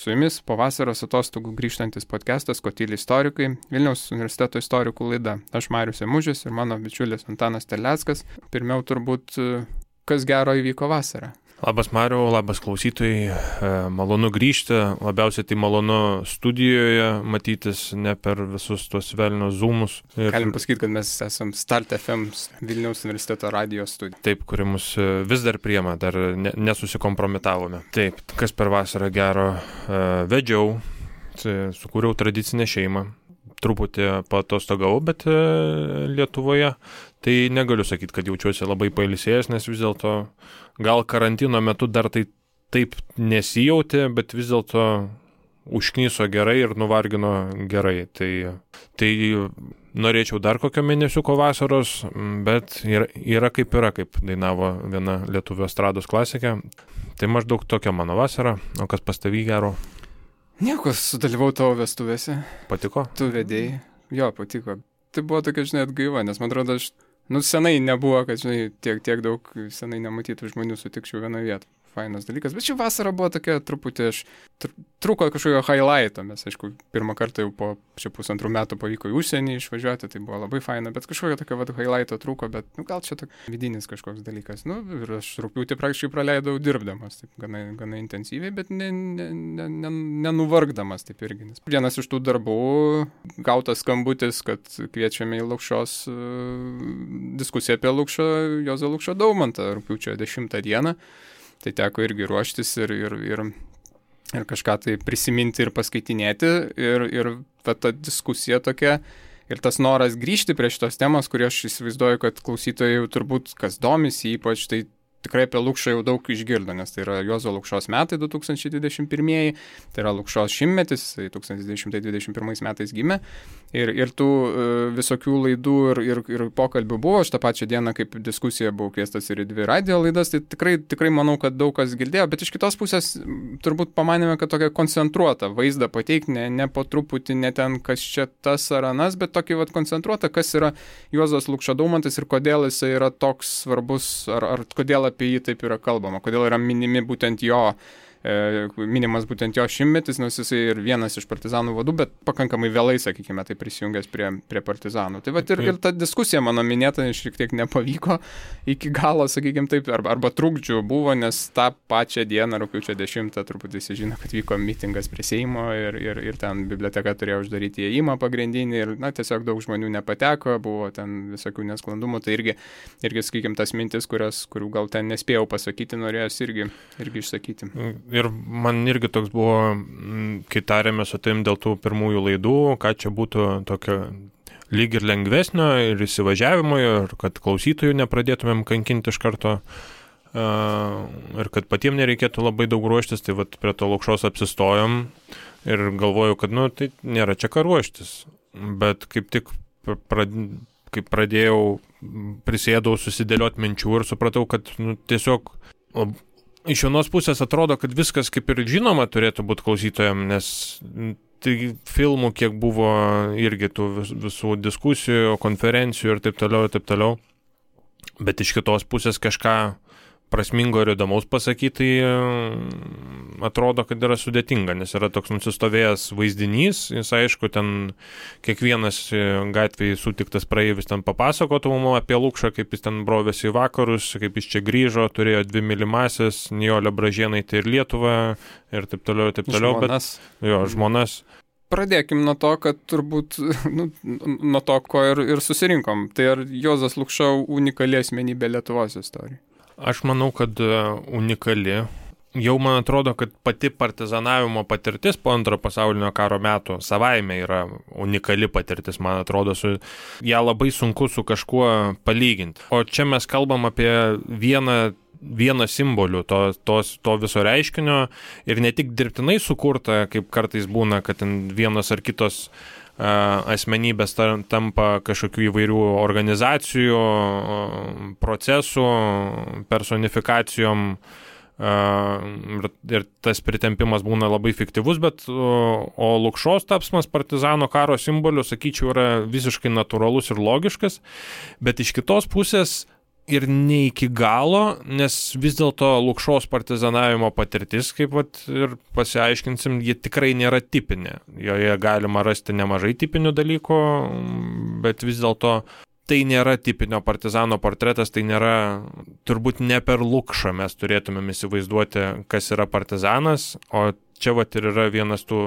Su jumis po vasaros atostogų grįžtantis podcastas Kotyli istorikai, Vilniaus universiteto istorikų laida. Aš Marius Emužis ir mano bičiulis Antanas Terleckas. Pirmiau turbūt, kas gero įvyko vasarą. Labas Mariau, labas klausytojai, malonu grįžti, labiausiai tai malonu studijoje matytis, ne per visus tuos velnios zoomus. Galim pasakyti, kad mes esam Start FM Vilniaus universiteto radio studija. Taip, kuri mus vis dar priema, dar nesusikompromitavome. Taip, kas per vasarą gero vedžiau, sukūriau tradicinę šeimą. Truputį paatostogavau, bet Lietuvoje tai negaliu sakyti, kad jaučiuosi labai pailsėjęs, nes vis dėlto gal karantino metu dar tai taip nesijautė, bet vis dėlto užkniso gerai ir nuvargino gerai. Tai norėčiau dar kokio mėnesiuko vasaros, bet yra kaip dainavo viena lietuvių estrados klasikė. Tai maždaug tokia mano vasara, o kas pas tavį gero? Nieko, sudalyvau tavo vestuvėse. Patiko? Tu vedėjai. Jo, patiko. Tai buvo tokia, atgaiva, nes man atrodo, senai nebuvo, kad, tiek daug senai nematytų žmonių sutikčiau vienoje vietoje. Fainas dalykas. Bet ši vasara buvo tokia truputį, trūko kažkokio highlighto. Mes, aišku, pirmą kartą jau po pusantrų metų pavyko į užsienį išvažiuoti, tai buvo labai faina, bet kažkokio tokio highlighto trūko, bet gal čia toks vidinis kažkoks dalykas. Ir aš rugpjūtį praktiškai praleidau dirbdamas, taip gana intensyviai, bet nenuvargdamas taip irgi. Vienas iš tų darbų, gautas skambutis, kad kviečiame į Lukšos diskusiją apie Juozą Lukšą Daumantą rugpjūčio 10 dieną. Tai teko irgi ruoštis ir kažką tai prisiminti ir paskaitinėti. Ir ta diskusija tokia ir tas noras grįžti prie šitos temos, kurį aš įsivaizduoju, kad klausytojai jau turbūt, kas domisi ypač, tai tikrai apie Lukšą jau daug išgirdo, nes tai yra Juozo Lukšos metai 2021, tai yra Lukšos šimtmetis, 1921 metais gimė. Ir tų visokių laidų ir pokalbių buvo. Aš tą pačią dieną, kaip diskusija, buvau kviestas ir į 2 radio laidas, tai tikrai manau, kad daug kas girdėjo, bet iš kitos pusės turbūt pamanėme, kad tokia koncentruota vaizdą pateikti, ne po truputį, ne ten kas čia tas ar anas, bet tokį koncentruotą, kas yra Juozas Lukša Daumantas ir kodėl jisai yra toks svarbus, ar kodėl apie jį taip yra kalbama, kodėl yra minimas būtent jo šimtmetis, nes jisai ir vienas iš partizanų vadų, bet pakankamai vėlai, sakykime, tai prisijungęs prie partizanų. Tai ir ta diskusija mano minėta šiek tiek nepavyko iki galo, sakykime taip, arba trukdžių buvo, nes tą pačią dieną, rugpjūčio 10, turbūt visi žino, kad vyko mitingas prie Seimo ir ten biblioteka turėjo uždaryti įėjimą pagrindinį ir, tiesiog daug žmonių nepateko, buvo ten visokių nesklandumų, tai irgi sakykime, tas mintis, kurių gal ten nespėjau pasakyti, norėjos irgi išsakyti. Ir man irgi toks buvo, kai tarėme su tavim dėl tų pirmųjų laidų, ką čia būtų tokio lyg ir lengvesnio ir įsivažiavimo, ir kad klausytojų nepradėtumėm kankinti iš karto, ir kad patiems nereikėtų labai daug ruoštis, tai prie to Lukšos apsistojom ir galvojau, kad tai nėra čia ką ruoštis. Bet kaip tik kaip pradėjau, prisėdau susidėlioti minčių ir supratau, kad tiesiog iš vienos pusės atrodo, kad viskas kaip ir žinoma turėtų būti klausytojams, nes tai filmų kiek buvo irgi tų visų diskusijų, konferencijų ir taip toliau. Bet iš kitos pusės kažką prasmingo ir įdomaus pasakyti, tai atrodo, kad yra sudėtinga, nes yra toks nusistovėjęs vaizdinys, jis aišku, ten kiekvienas gatvėje sutiktas praeivis ten papasakotų mums apie Lukšą, kaip jis ten brovėsi į vakarus, kaip jis čia grįžo, turėjo 2 mylimąsias, Nijolę Bražėnaitę ir Lietuvą ir taip toliau. Žmonas. Žmonas. Pradėkim nuo to, kad turbūt, nuo to, ko ir susirinkom. Tai ar Juozas Lukša unikali asmenybė Lietuvos istorijai? Aš manau, kad unikali. Jau man atrodo, kad pati partizanavimo patirtis po Antrojo pasaulinio karo metų savaime yra unikali patirtis, man atrodo, ją labai sunku su kažkuo palyginti. O čia mes kalbam apie vieną simbolių to viso reiškinio ir ne tik dirbtinai sukurta, kaip kartais būna, kad vienos ar kitos asmenybės tampa kažkokių įvairių organizacijų, procesų, personifikacijom ir tas pritempimas būna labai fiktyvus, bet o Lukšos tapsmas partizano karo simboliu, sakyčiau, yra visiškai natūralus ir logiškas, bet iš kitos pusės ir ne iki galo, nes vis dėlto Lukšos partizanavimo patirtis, kaip ir pasiaiškinsim, ji tikrai nėra tipinė. Joje galima rasti nemažai tipinių dalykų, bet vis dėlto tai nėra tipinio partizano portretas, tai nėra, turbūt ne per Lukšą mes turėtumėm įsivaizduoti, kas yra partizanas, o čia ir yra vienas tų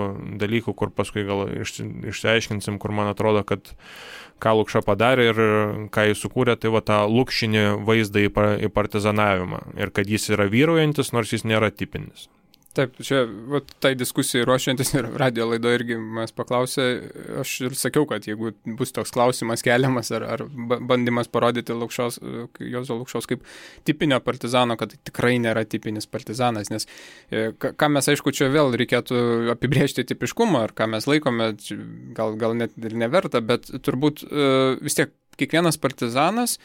dalykų, kur paskui gal išsiaiškinsim, kur man atrodo, kad ką Lukša padarė ir ką jis sukūrė, tai tą lukšinį vaizdą į partizanavimą. Ir kad jis yra vyraujantis, nors jis nėra tipinis. Taip, čia tai diskusijai ruošiantis ir radio laido irgi mes paklausė, aš ir sakiau, kad jeigu bus toks klausimas keliamas ar bandymas parodyti Juozo Lukšos kaip tipinio partizano, kad tai tikrai nėra tipinis partizanas, nes ką mes, aišku, čia vėl reikėtų apibrėžti tipiškumą, ar ką mes laikome, gal net ir neverta, bet turbūt vis tiek kiekvienas partizanas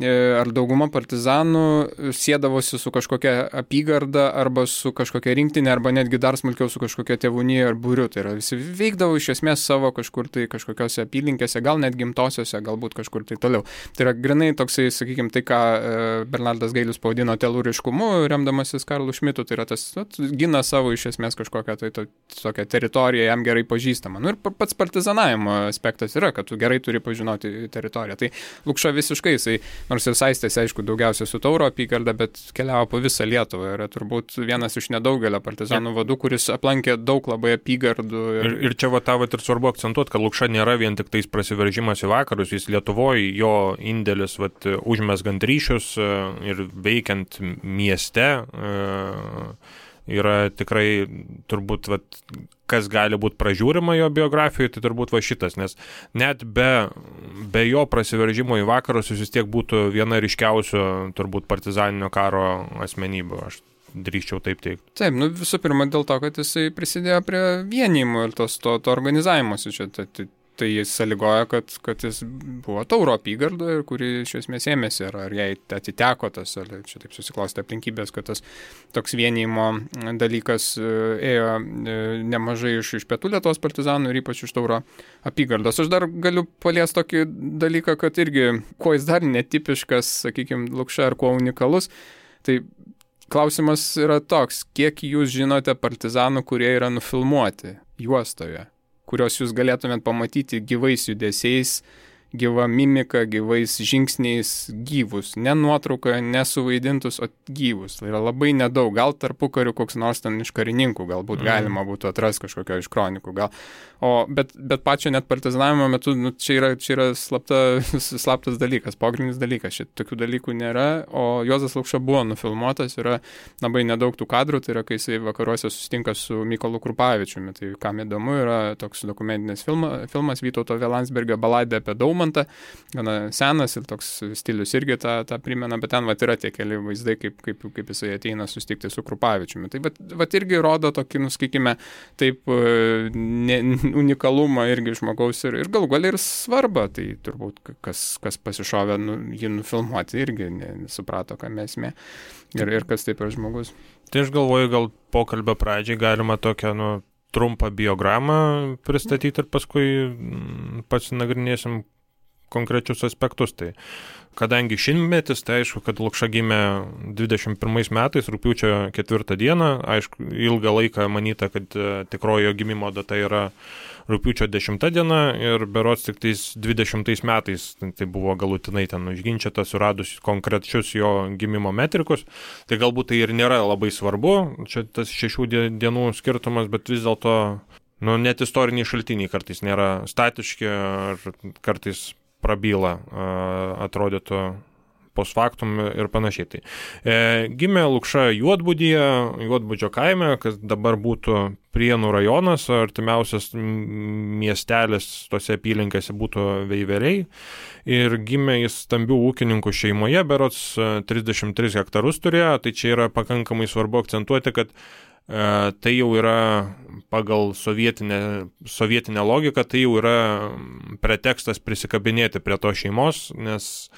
ar dauguma partizanų siedavosi su kažkokia apygarda arba su kažkokia rinktinė arba netgi dar smulkiau su kažkokia tėvūnija ar būriu. Tai yra visi veikdavo iš esmės savo kažkur tai kažkokiose apylinkėse, gal net gimtosiose, galbūt kažkur tai toliau. Tai yra grinai toksai, sakykime, tai ką Bernardas Gailius pavadino telūriškumu, remdamasis Karlu Šmitu, tai yra tas gina savo iš esmės kažkokią tai tokią teritoriją jam gerai pažįstamą. Ir pats partizanavimo aspektas yra, kad tu gerai turi pažinoti teritoriją. Tai Lukša visiškai jisai nors ir saistėsi, aišku, daugiausia su Tauro apygarda, bet keliavo po visą Lietuvą. Yra turbūt vienas iš nedaugelio partizanų vadų, kuris aplankė daug labai apygardų. Ir čia ir svarbu akcentuoti, kad Lukša nėra vien tik tais prasiveržimas į vakarus, jis Lietuvoje, jo indėlis užmesgant ryšius ir veikiant mieste yra tikrai turbūt kas gali būti pražiūrima jo biografijoje, tai turbūt šitas, nes net be jo prasiveržimo į vakarus jis vis tiek būtų viena ryškiausių turbūt partizaninio karo asmenybių, aš drįsčiau taip teikti. Taip, visų pirma dėl to, kad jisai prisidėjo prie vienijimo ir to organizavimosi čia. Tai jis sąlygoja, kad jis buvo Tauro apygardoje, kuri iš esmės ėmėsi, ar jai atiteko tas, ar čia taip susiklostė aplinkybės, kad tas toks vienijimo dalykas ėjo nemažai iš pietų Lietuvos partizanų ir ypač iš Tauro apygardos. Aš dar galiu paliesti tokį dalyką, kad irgi, kuo jis dar netipiškas, sakykime, Lukša, ar kuo unikalus, tai klausimas yra toks, kiek jūs žinote partizanų, kurie yra nufilmuoti juostoje, kurios jūs galėtumėt pamatyti gyvais judesiais, gyva mimika, gyvais žingsniais, gyvus. Ne nuotraukoje, nesuvaidintus, o gyvus. Tai yra labai nedaug. Gal tarpukariu koks nors ten iš karininkų, galbūt galima būtų atrasti kažkokio iš kronikų. Bet pačio net partizanavimo metu čia yra slaptas dalykas, pogrindinis dalykas. Šit tokių dalykų nėra, o Juozas Lukša buvo nufilmuotas, yra labai nedaug tų kadrų, tai yra, kai jisai vakaruose susitinka su Mykolu Krupavičiumi. Tai kam įdomu, yra toks dokumentinis filmas Vytauto V. Landsbergio Baladė apie Daumantą, gana senas ir toks stilius irgi tą primena, bet ten yra tie keli vaizdai, kaip jisai ateina susitikti su Krupavičiumi. Tai irgi rodo tokį, sakykime, taip unikalumą irgi žmogaus ir galų gale ir svarbą, tai turbūt kas pasišovė jį nufilmuoti irgi nesuprato, ką esmė ir kas taip yra žmogus. Tai aš galvoju, gal pokalbio pradžiai galima tokią trumpą biogramą pristatyti ir paskui pasinagrinėsim konkrečius aspektus. Tai kadangi šimtmetis, tai aišku, kad Lukša gimė 21 metais, rugpjūčio 4 dieną, aišku, ilgą laiką manyta, kad tikrojo gimimo data yra rugpjūčio 10 diena ir berods tik tais 20 metais tai buvo galutinai ten užginčyta, suradus konkrečius jo gimimo metrikus. Tai galbūt tai ir nėra labai svarbu, čia tas 6 dienų skirtumas, bet vis dėlto net istoriniai šaltiniai kartais nėra statiški ar kartais prabyla, atrodytų post factum ir panašiai. Tai gimė Lukša Juodbudžio kaime, kas dabar būtų Prienų rajonas, artimiausias miestelis tose apylinkėse būtų Veiveriai. Ir gimė jis stambių ūkininkų šeimoje, berods 33 hektarus turėjo, tai čia yra pakankamai svarbu akcentuoti, kad tai jau yra pagal sovietinę logiką, tai jau yra pretekstas prisikabinėti prie to šeimos, nes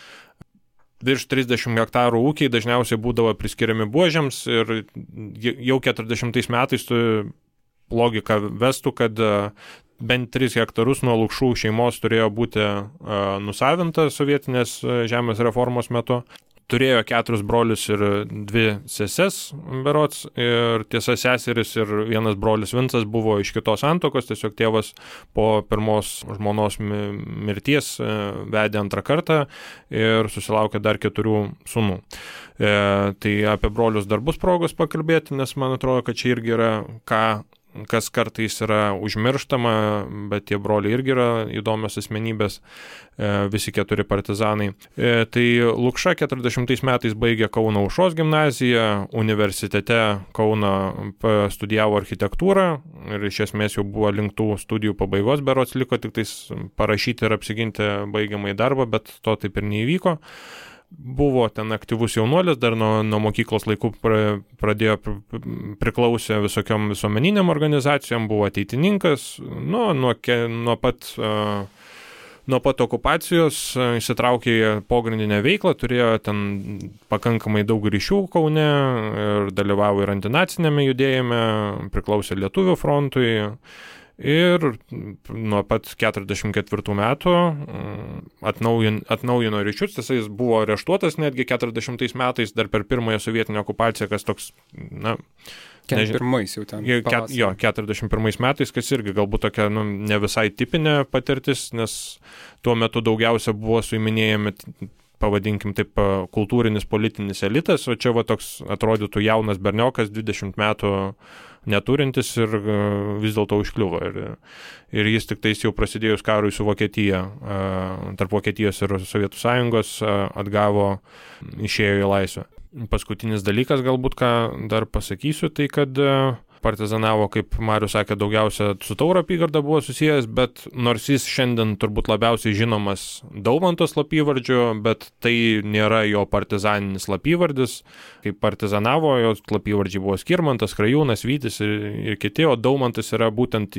virš 30 hektarų ūkiai dažniausiai būdavo priskiriami buožėms ir jau 40 metais logika vestų, kad bent 3 hektarus nuo Lukšų šeimos turėjo būti nusavinta sovietinės žemės reformos metu. Turėjo 4 brolius ir 2 seses berods, ir tiesa seseris ir vienas brolis Vincas buvo iš kitos santuokos, tiesiog tėvas po pirmos žmonos mirties vedė antrą kartą ir susilaukė dar 4 sūnų. Tai apie brolius dar bus progos pakalbėti, nes man atrodo, kad čia irgi yra kas kartais yra užmirštama, bet tie broliai irgi yra įdomios asmenybės, visi 4 partizanai. Tai Lukša 40 metais baigė Kauno Aušros gimnaziją, universitete Kauno studijavo architektūrą ir iš esmės jau buvo link tų studijų pabaigos, berods liko tik tais parašyti ir apsiginti baigiamąjį darbą, bet to taip ir neįvyko. Buvo ten aktyvus jaunuolis, dar nuo mokyklos laikų priklausė visokiom visuomeniniam organizacijom, buvo ateitininkas, nuo pat okupacijos įsitraukė į pogrindinę veiklą, turėjo ten pakankamai daug ryšių Kaune ir dalyvavo ir antinacinėme judėjime, priklausė Lietuvių frontui. Ir nuo pat 44 metų atnaujino ryšius, jis buvo areštuotas netgi 40 metais, dar per pirmąją sovietinę okupaciją, kas toks, 41 metais, kas irgi galbūt tokia ne visai tipinė patirtis, nes tuo metu daugiausia buvo suiminėjami, pavadinkim taip, kultūrinis politinis elitas, o čia toks atrodytų jaunas berniokas, 20 metų neturintis ir vis dėlto užkliuvo. Ir jis tik tais jau prasidėjus karui su Vokietija, tarp Vokietijos ir Sovietų Sąjungos, išėjo į laisvę. Paskutinis dalykas galbūt, ką dar pasakysiu, tai kad partizanavo, kaip Marius sakė, daugiausia su Tauro apygarda buvo susijęs, bet nors jis šiandien turbūt labiausiai žinomas Daumanto slapyvardžiu, bet tai nėra jo partizaninis slapyvardis. Kaip partizanavo, jo slapyvardžiai buvo Skirmantas, Krajūnas, Vytis ir kiti, o Daumantas yra būtent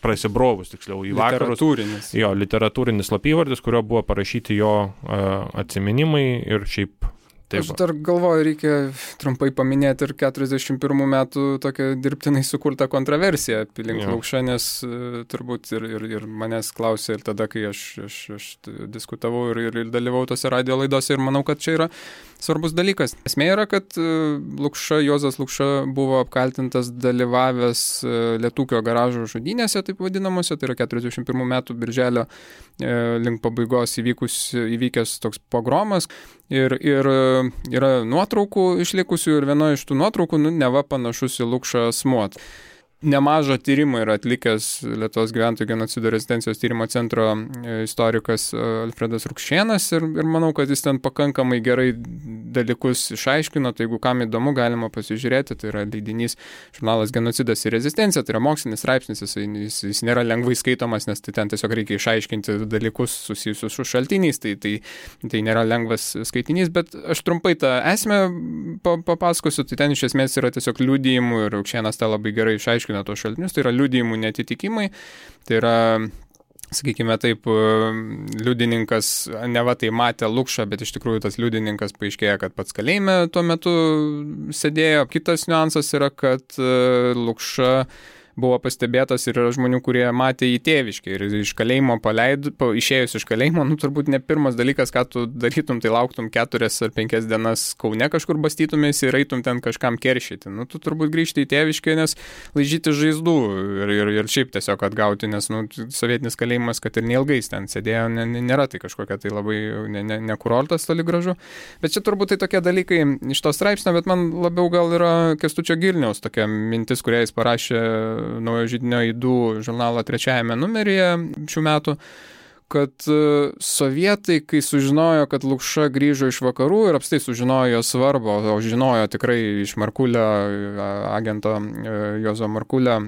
prasibrovus, tiksliau, į vakarus. Literatūrinis slapyvardis, kurio buvo parašyti jo atsiminimai ir šiaip. Taip. Aš dar galvoju, reikia trumpai paminėti ir 41 metų tokią dirbtinai sukurtą kontroversiją aplink Lukšą, nes turbūt ir manęs klausė ir tada, kai aš diskutavau ir dalyvau tose radio laidose ir manau, kad čia yra svarbus dalykas. Esmė yra, kad Juozas Lukša buvo apkaltintas dalyvavęs Lietūkio garažo žudynėse, taip vadinamuose, tai yra 41 metų birželio link pabaigos įvykęs toks pogromas. Ir yra nuotraukų išlikusių ir viena iš tų nuotraukų, neva panašus į Lukšą asmuo. Nemažą tyrimą yra atlikęs Lietuvos gyventojų genocido rezistencijos tyrimo centro istorikas Alfredas Rukšėnas ir manau, kad jis ten pakankamai gerai dalykus išaiškino, tai jeigu kam įdomu, galima pasižiūrėti, tai yra leidinys žurnalas Genocidas ir rezistencija, tai yra mokslinis straipsnis, jis nėra lengvai skaitomas, nes tai ten tiesiog reikia išaiškinti dalykus susijusius su šaltiniais, tai nėra lengvas skaitinys, bet aš trumpai tą esmę papasakosiu, tai ten iš esmės yra tiesiog liudijimų ir Rukšėnas tą labai gerai išaiškino tos šaltinius, tai yra liudijimų netitikimai, tai yra, sakykime taip, liudininkas neva tai matė Lukšą, bet iš tikrųjų tas liudininkas paaiškėja, kad pats kalėjime tuo metu sėdėjo. Kitas niuansas yra, kad Lukša buvo pastebėtas ir yra žmonių, kurie matė į tėviškę ir iš kalėjimo išėjus iš kalėjimo, turbūt ne pirmas dalykas, ką tu darytum, tai lauktum 4 ar 5 dienas Kaune kažkur bastytumės ir eitum ten kažkam keršyti. Tu turbūt grįžti į tėviškę, nes laižyti žaizdų ir šiaip tiesiog atgauti, nes sovietinis kalėjimas, kad ir neilgais ten sėdėjo, nėra tai kažkokia tai labai nekurortas toli gražu. Bet čia turbūt tai tokie dalykai iš to straipsnio, bet man labiau gal yra Kęstučio Girniaus tokia mintis, kurią jis parašė Naujo židinio Aidų žurnalo 3 numeryje šių metų, kad sovietai, kai sužinojo, kad Lukša grįžo iš vakarų ir apstai sužinojo jo svarbą, o žinojo tikrai iš Markulio, agento Juozo Markulio,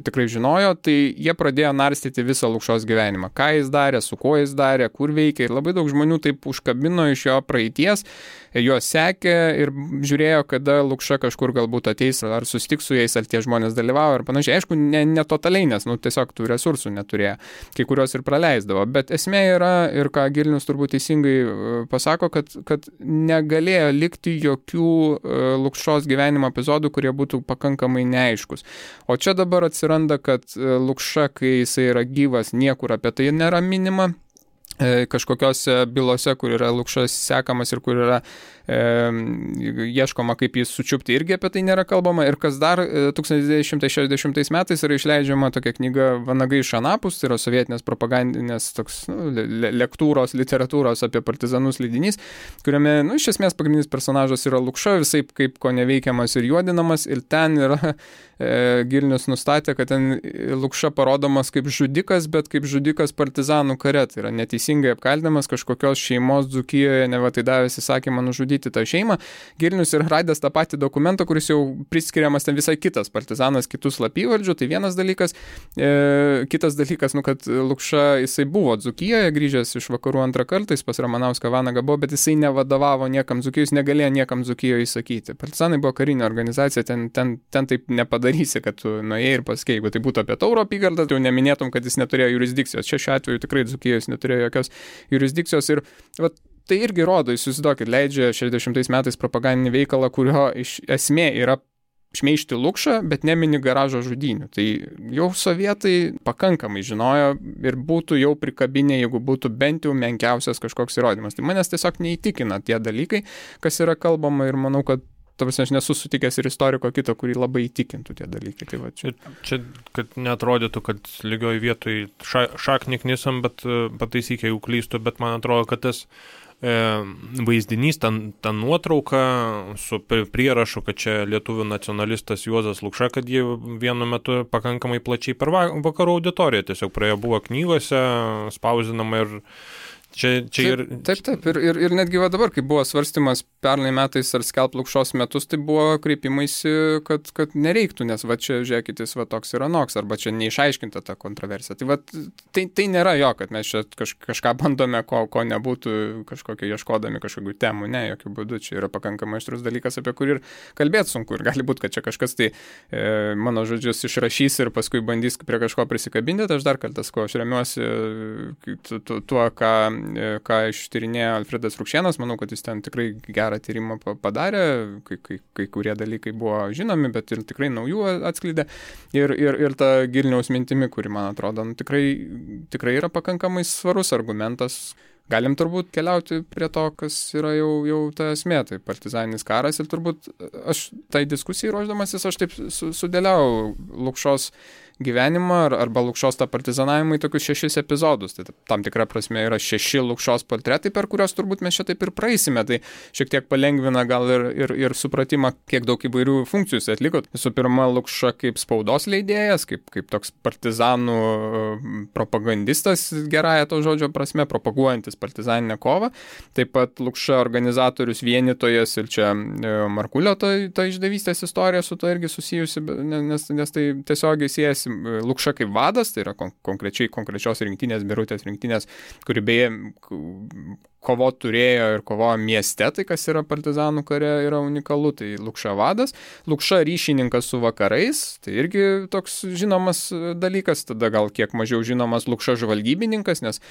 tikrai žinojo, tai jie pradėjo narstyti visą Lukšos gyvenimą. Ką jis darė, su kuo jis darė, kur veikė. Ir labai daug žmonių taip užkabino iš jo praeities, juos sekė ir žiūrėjo, kada Lukša kažkur galbūt ateis, ar susitiks su jais, ar tie žmonės dalyvavo ir panašiai. Aišku, ne totaliai, nes tiesiog tų resursų neturėjo, kai kurios ir praleisdavo. Bet esmė yra, ir ką Gilnius turbūt teisingai pasako, kad negalėjo likti jokių Lukšos gyvenimo epizodų, kurie būtų pakankamai neaiškus. O čia dabar atsiranda, kad Lukša, kai jisai yra gyvas, niekur apie tai nėra minima. Kažkokiose bylose, kur yra Lukšas sekamas ir kur yra ieškoma, kaip jis sučiupti, irgi apie tai nėra kalbama. Ir kas dar 1960 metais yra išleidžiama tokia knyga Vanagai iš Anapus, tai yra sovietinės propagandinės toks lektūros, literatūros apie partizanus leidinys, kuriame, iš esmės pagrindinis personažas yra Lukša, visai kaip ko neveikiamas ir juodinamas, ir ten yra Gilnius nustatė, kad ten Lukša parodomas kaip žudikas, bet kaip žudikas partizanų kare, tai yra neteisingai apkaltinamas kažkokios šeimos Dzūkijoje, neva tai davęs įsakymą nužudyti tą šeimą. Gilnius yra radęs tą patį dokumentą, kuris jau priskiriamas ten visai kitas partizanas, kitus slapyvardžių, tai vienas dalykas. Kitas dalykas, kad Lukša jisai buvo Dzūkijoje, grįžęs iš vakarų antrą kartą, jis pas Ramanauską Vanagą buvo, bet jisai nevadovavo niekam Dzūkijos, negalėjo niekam Dzūkijoje įsakyti. Partizanai buvo karinė organizacija, ten taip nepadarysi, kad tu nuėjai ir pasakei, jeigu tai būtų apie Tauro apygardą, tai jau neminėtum, kad jis neturėjo jurisdikcijos. Čia šiuo atveju tikrai Dzūkijos neturėjo jokios jurisdikcijos ir tai irgi rodo, jūs įsivaizduokit, leidžia 60 metais propagandinį veikalą, kurio esmė yra šmeižti Lukšą, bet nemini garažo žudynių. Tai jau sovietai pakankamai žinojo ir būtų jau prikabinę, jeigu būtų bent jau menkiausias kažkoks įrodymas. Tai manęs tiesiog neįtikina tie dalykai, kas yra kalbama, ir manau, kad aš nesu sutikęs ir istoriko kito, kurį labai įtikintų tie dalykai. Tai va, čia, kad neatrodytų, kad lygioj vietoj šaknį knisam, bet pataisyk, jeigu klystu, bet man atrodo, kad tas vaizdinys, ta nuotrauka su prierašu, kad čia lietuvių nacionalistas Juozas Lukša, kad jie vienu metu pakankamai plačiai per vakarų auditoriją tiesiog praėjo, buvo knygose spausdinama ir Taip. Ir netgi dabar, kai buvo svarstymas pernai metais ar skelbt Lukšos metus, tai buvo kreipimaisi, kad nereiktų, nes čia, žiūrėkit, jis toks ir anoks, arba čia neišaiškinta ta kontroversija. Tai nėra jo, kad mes čia kažką bandome, ko nebūtų kažkokio ieškodami kažkokių temų. Ne, jokių būdų. Čia yra pakankamai aštrus dalykas, apie kurį ir kalbėti sunku. Ir gali būti, kad čia kažkas tai mano žodžius išrašys ir paskui bandys prie kažko prisikabinti. Aš dar kartą sakau, aš remiuosi tuo, ką ištyrinėjo Alfredas Rukšėnas, manau, kad jis ten tikrai gerą tyrimą padarė, kai kurie dalykai buvo žinomi, bet ir tikrai naujų atskleidė. Ir ta Gilniaus mintimi, kuri, man atrodo, tikrai yra pakankamai svarus argumentas. Galim turbūt keliauti prie to, kas yra jau ta esmė, tai partizaninis karas, ir turbūt aš tai diskusijai ruošdamasis, aš taip sudėliau Lukšos gyvenimą arba Lukšos tą partizanavimą į tokius 6 epizodus. Tai tam tikra prasme yra 6 Lukšos portretai, per kurios turbūt mes čia taip ir praeisime. Tai šiek tiek palengvina gal ir supratimą, kiek daug įvairių funkcijų jis atliko. Visų pirma, Lukša kaip spaudos leidėjas, kaip toks partizanų propagandistas, gerąją to žodžio prasme, propaguojantis partizaninę kovą. Taip pat Lukša organizatorius, vienytojas, ir čia Markulio ta išdavystės istorija su to irgi susijusi, nes tai tiesiogiai siejasi. Lukša kaip vadas, tai yra konkrečios rinktinės, Birutės rinktinės, kuri beje kovot turėjo ir kovojo mieste, tai kas yra partizanų kare yra unikalu, tai Lukša vadas. Lukša ryšininkas su vakarais, tai irgi toks žinomas dalykas, tada gal kiek mažiau žinomas Lukša žvalgybininkas, nes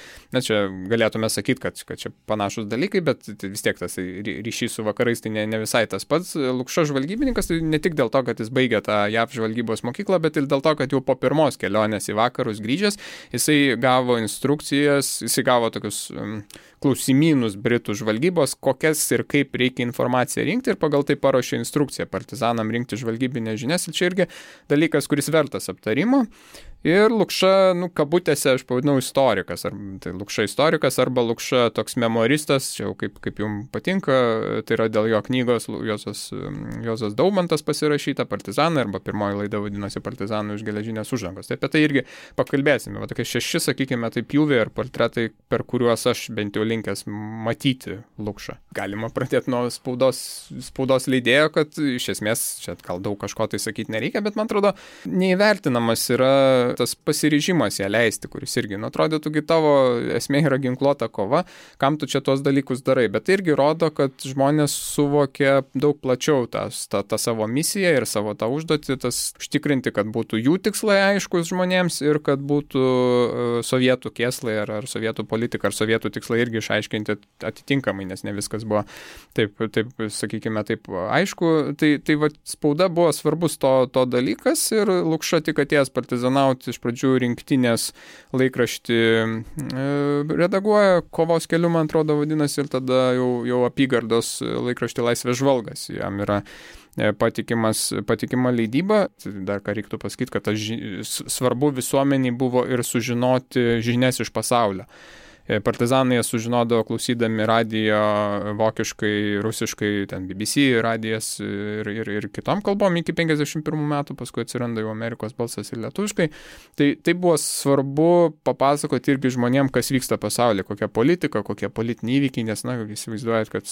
čia galėtume sakyti, kad čia panašus dalykai, bet vis tiek tas ryšys su vakarais tai ne visai tas pats. Lukša žvalgybininkas tai ne tik dėl to, kad jis baigė tą JAV žvalgybos mokyklą, bet ir dėl to, kad jau po pirmos kelionės į vakarus grįžęs, jisai gavo instrukcijas, jisai gavo tokius klausimynus Britų žvalgybos, kokias ir kaip reikia informaciją rinkti, ir pagal tai paruošė instrukciją partizanam rinkti žvalgybinės žinias. Ir čia irgi dalykas, kuris vertas aptarimo. Ir Lukša, kabutėse aš pavadinau istorikas, tai Lukša istorikas arba Lukša toks memoristas, čia jau kaip jums patinka, tai yra dėl jo knygos Juozas Daumantas pasirašyta Partizanai, arba pirmoji laida vadinosi Partizanų iš geležinės uždangos. Tai apie tai irgi pakalbėsime. Tokie 6, sakykime, tai pjūviai ar portretai, per kuriuos aš bent jau linkęs matyti Lukšą. Galima pradėti nuo spaudos leidėjo, kad iš esmės čia gal daug kažko tai sakyti nereikia, bet man atrodo neįvertinamas yra tas pasiryžimas ją leisti, kuris irgi, atrodytųgi tavo esmė yra ginkluota kova, kam tu čia tuos dalykus darai, bet tai irgi rodo, kad žmonės suvokia daug plačiau tą savo misiją ir savo tą užduotį, tas užtikrinti, kad būtų jų tikslai aiškus žmonėms ir kad būtų sovietų kėslai ar sovietų politika ar sovietų tikslai irgi išaiškinti atitinkamai, nes ne viskas buvo taip sakykime, taip aišku. Tai va, spauda buvo svarbus to dalykas ir Lukša tik atėjęs partizanauti iš pradžių rinktinės laikraštį redaguoja, Kovos keliu, man atrodo, vadinasi, ir tada jau apygardos laikraštį Laisvės žvalgas. Jam yra patikima leidyba. Dar ką reiktų pasakyti, kad svarbu visuomeniai buvo ir sužinoti žinias iš pasaulio. Partizanai sužinodavo klausydami radijo vokiškai, rusiškai, ten BBC radijas ir kitom kalbom iki 51 metų, paskui atsiranda jau Amerikos balsas ir lietuviškai. Tai buvo svarbu papasakoti irgi žmonėm, kas vyksta pasaulyje, kokia politika, kokie politiniai įvykiai, nes, įsivaizduojat, kad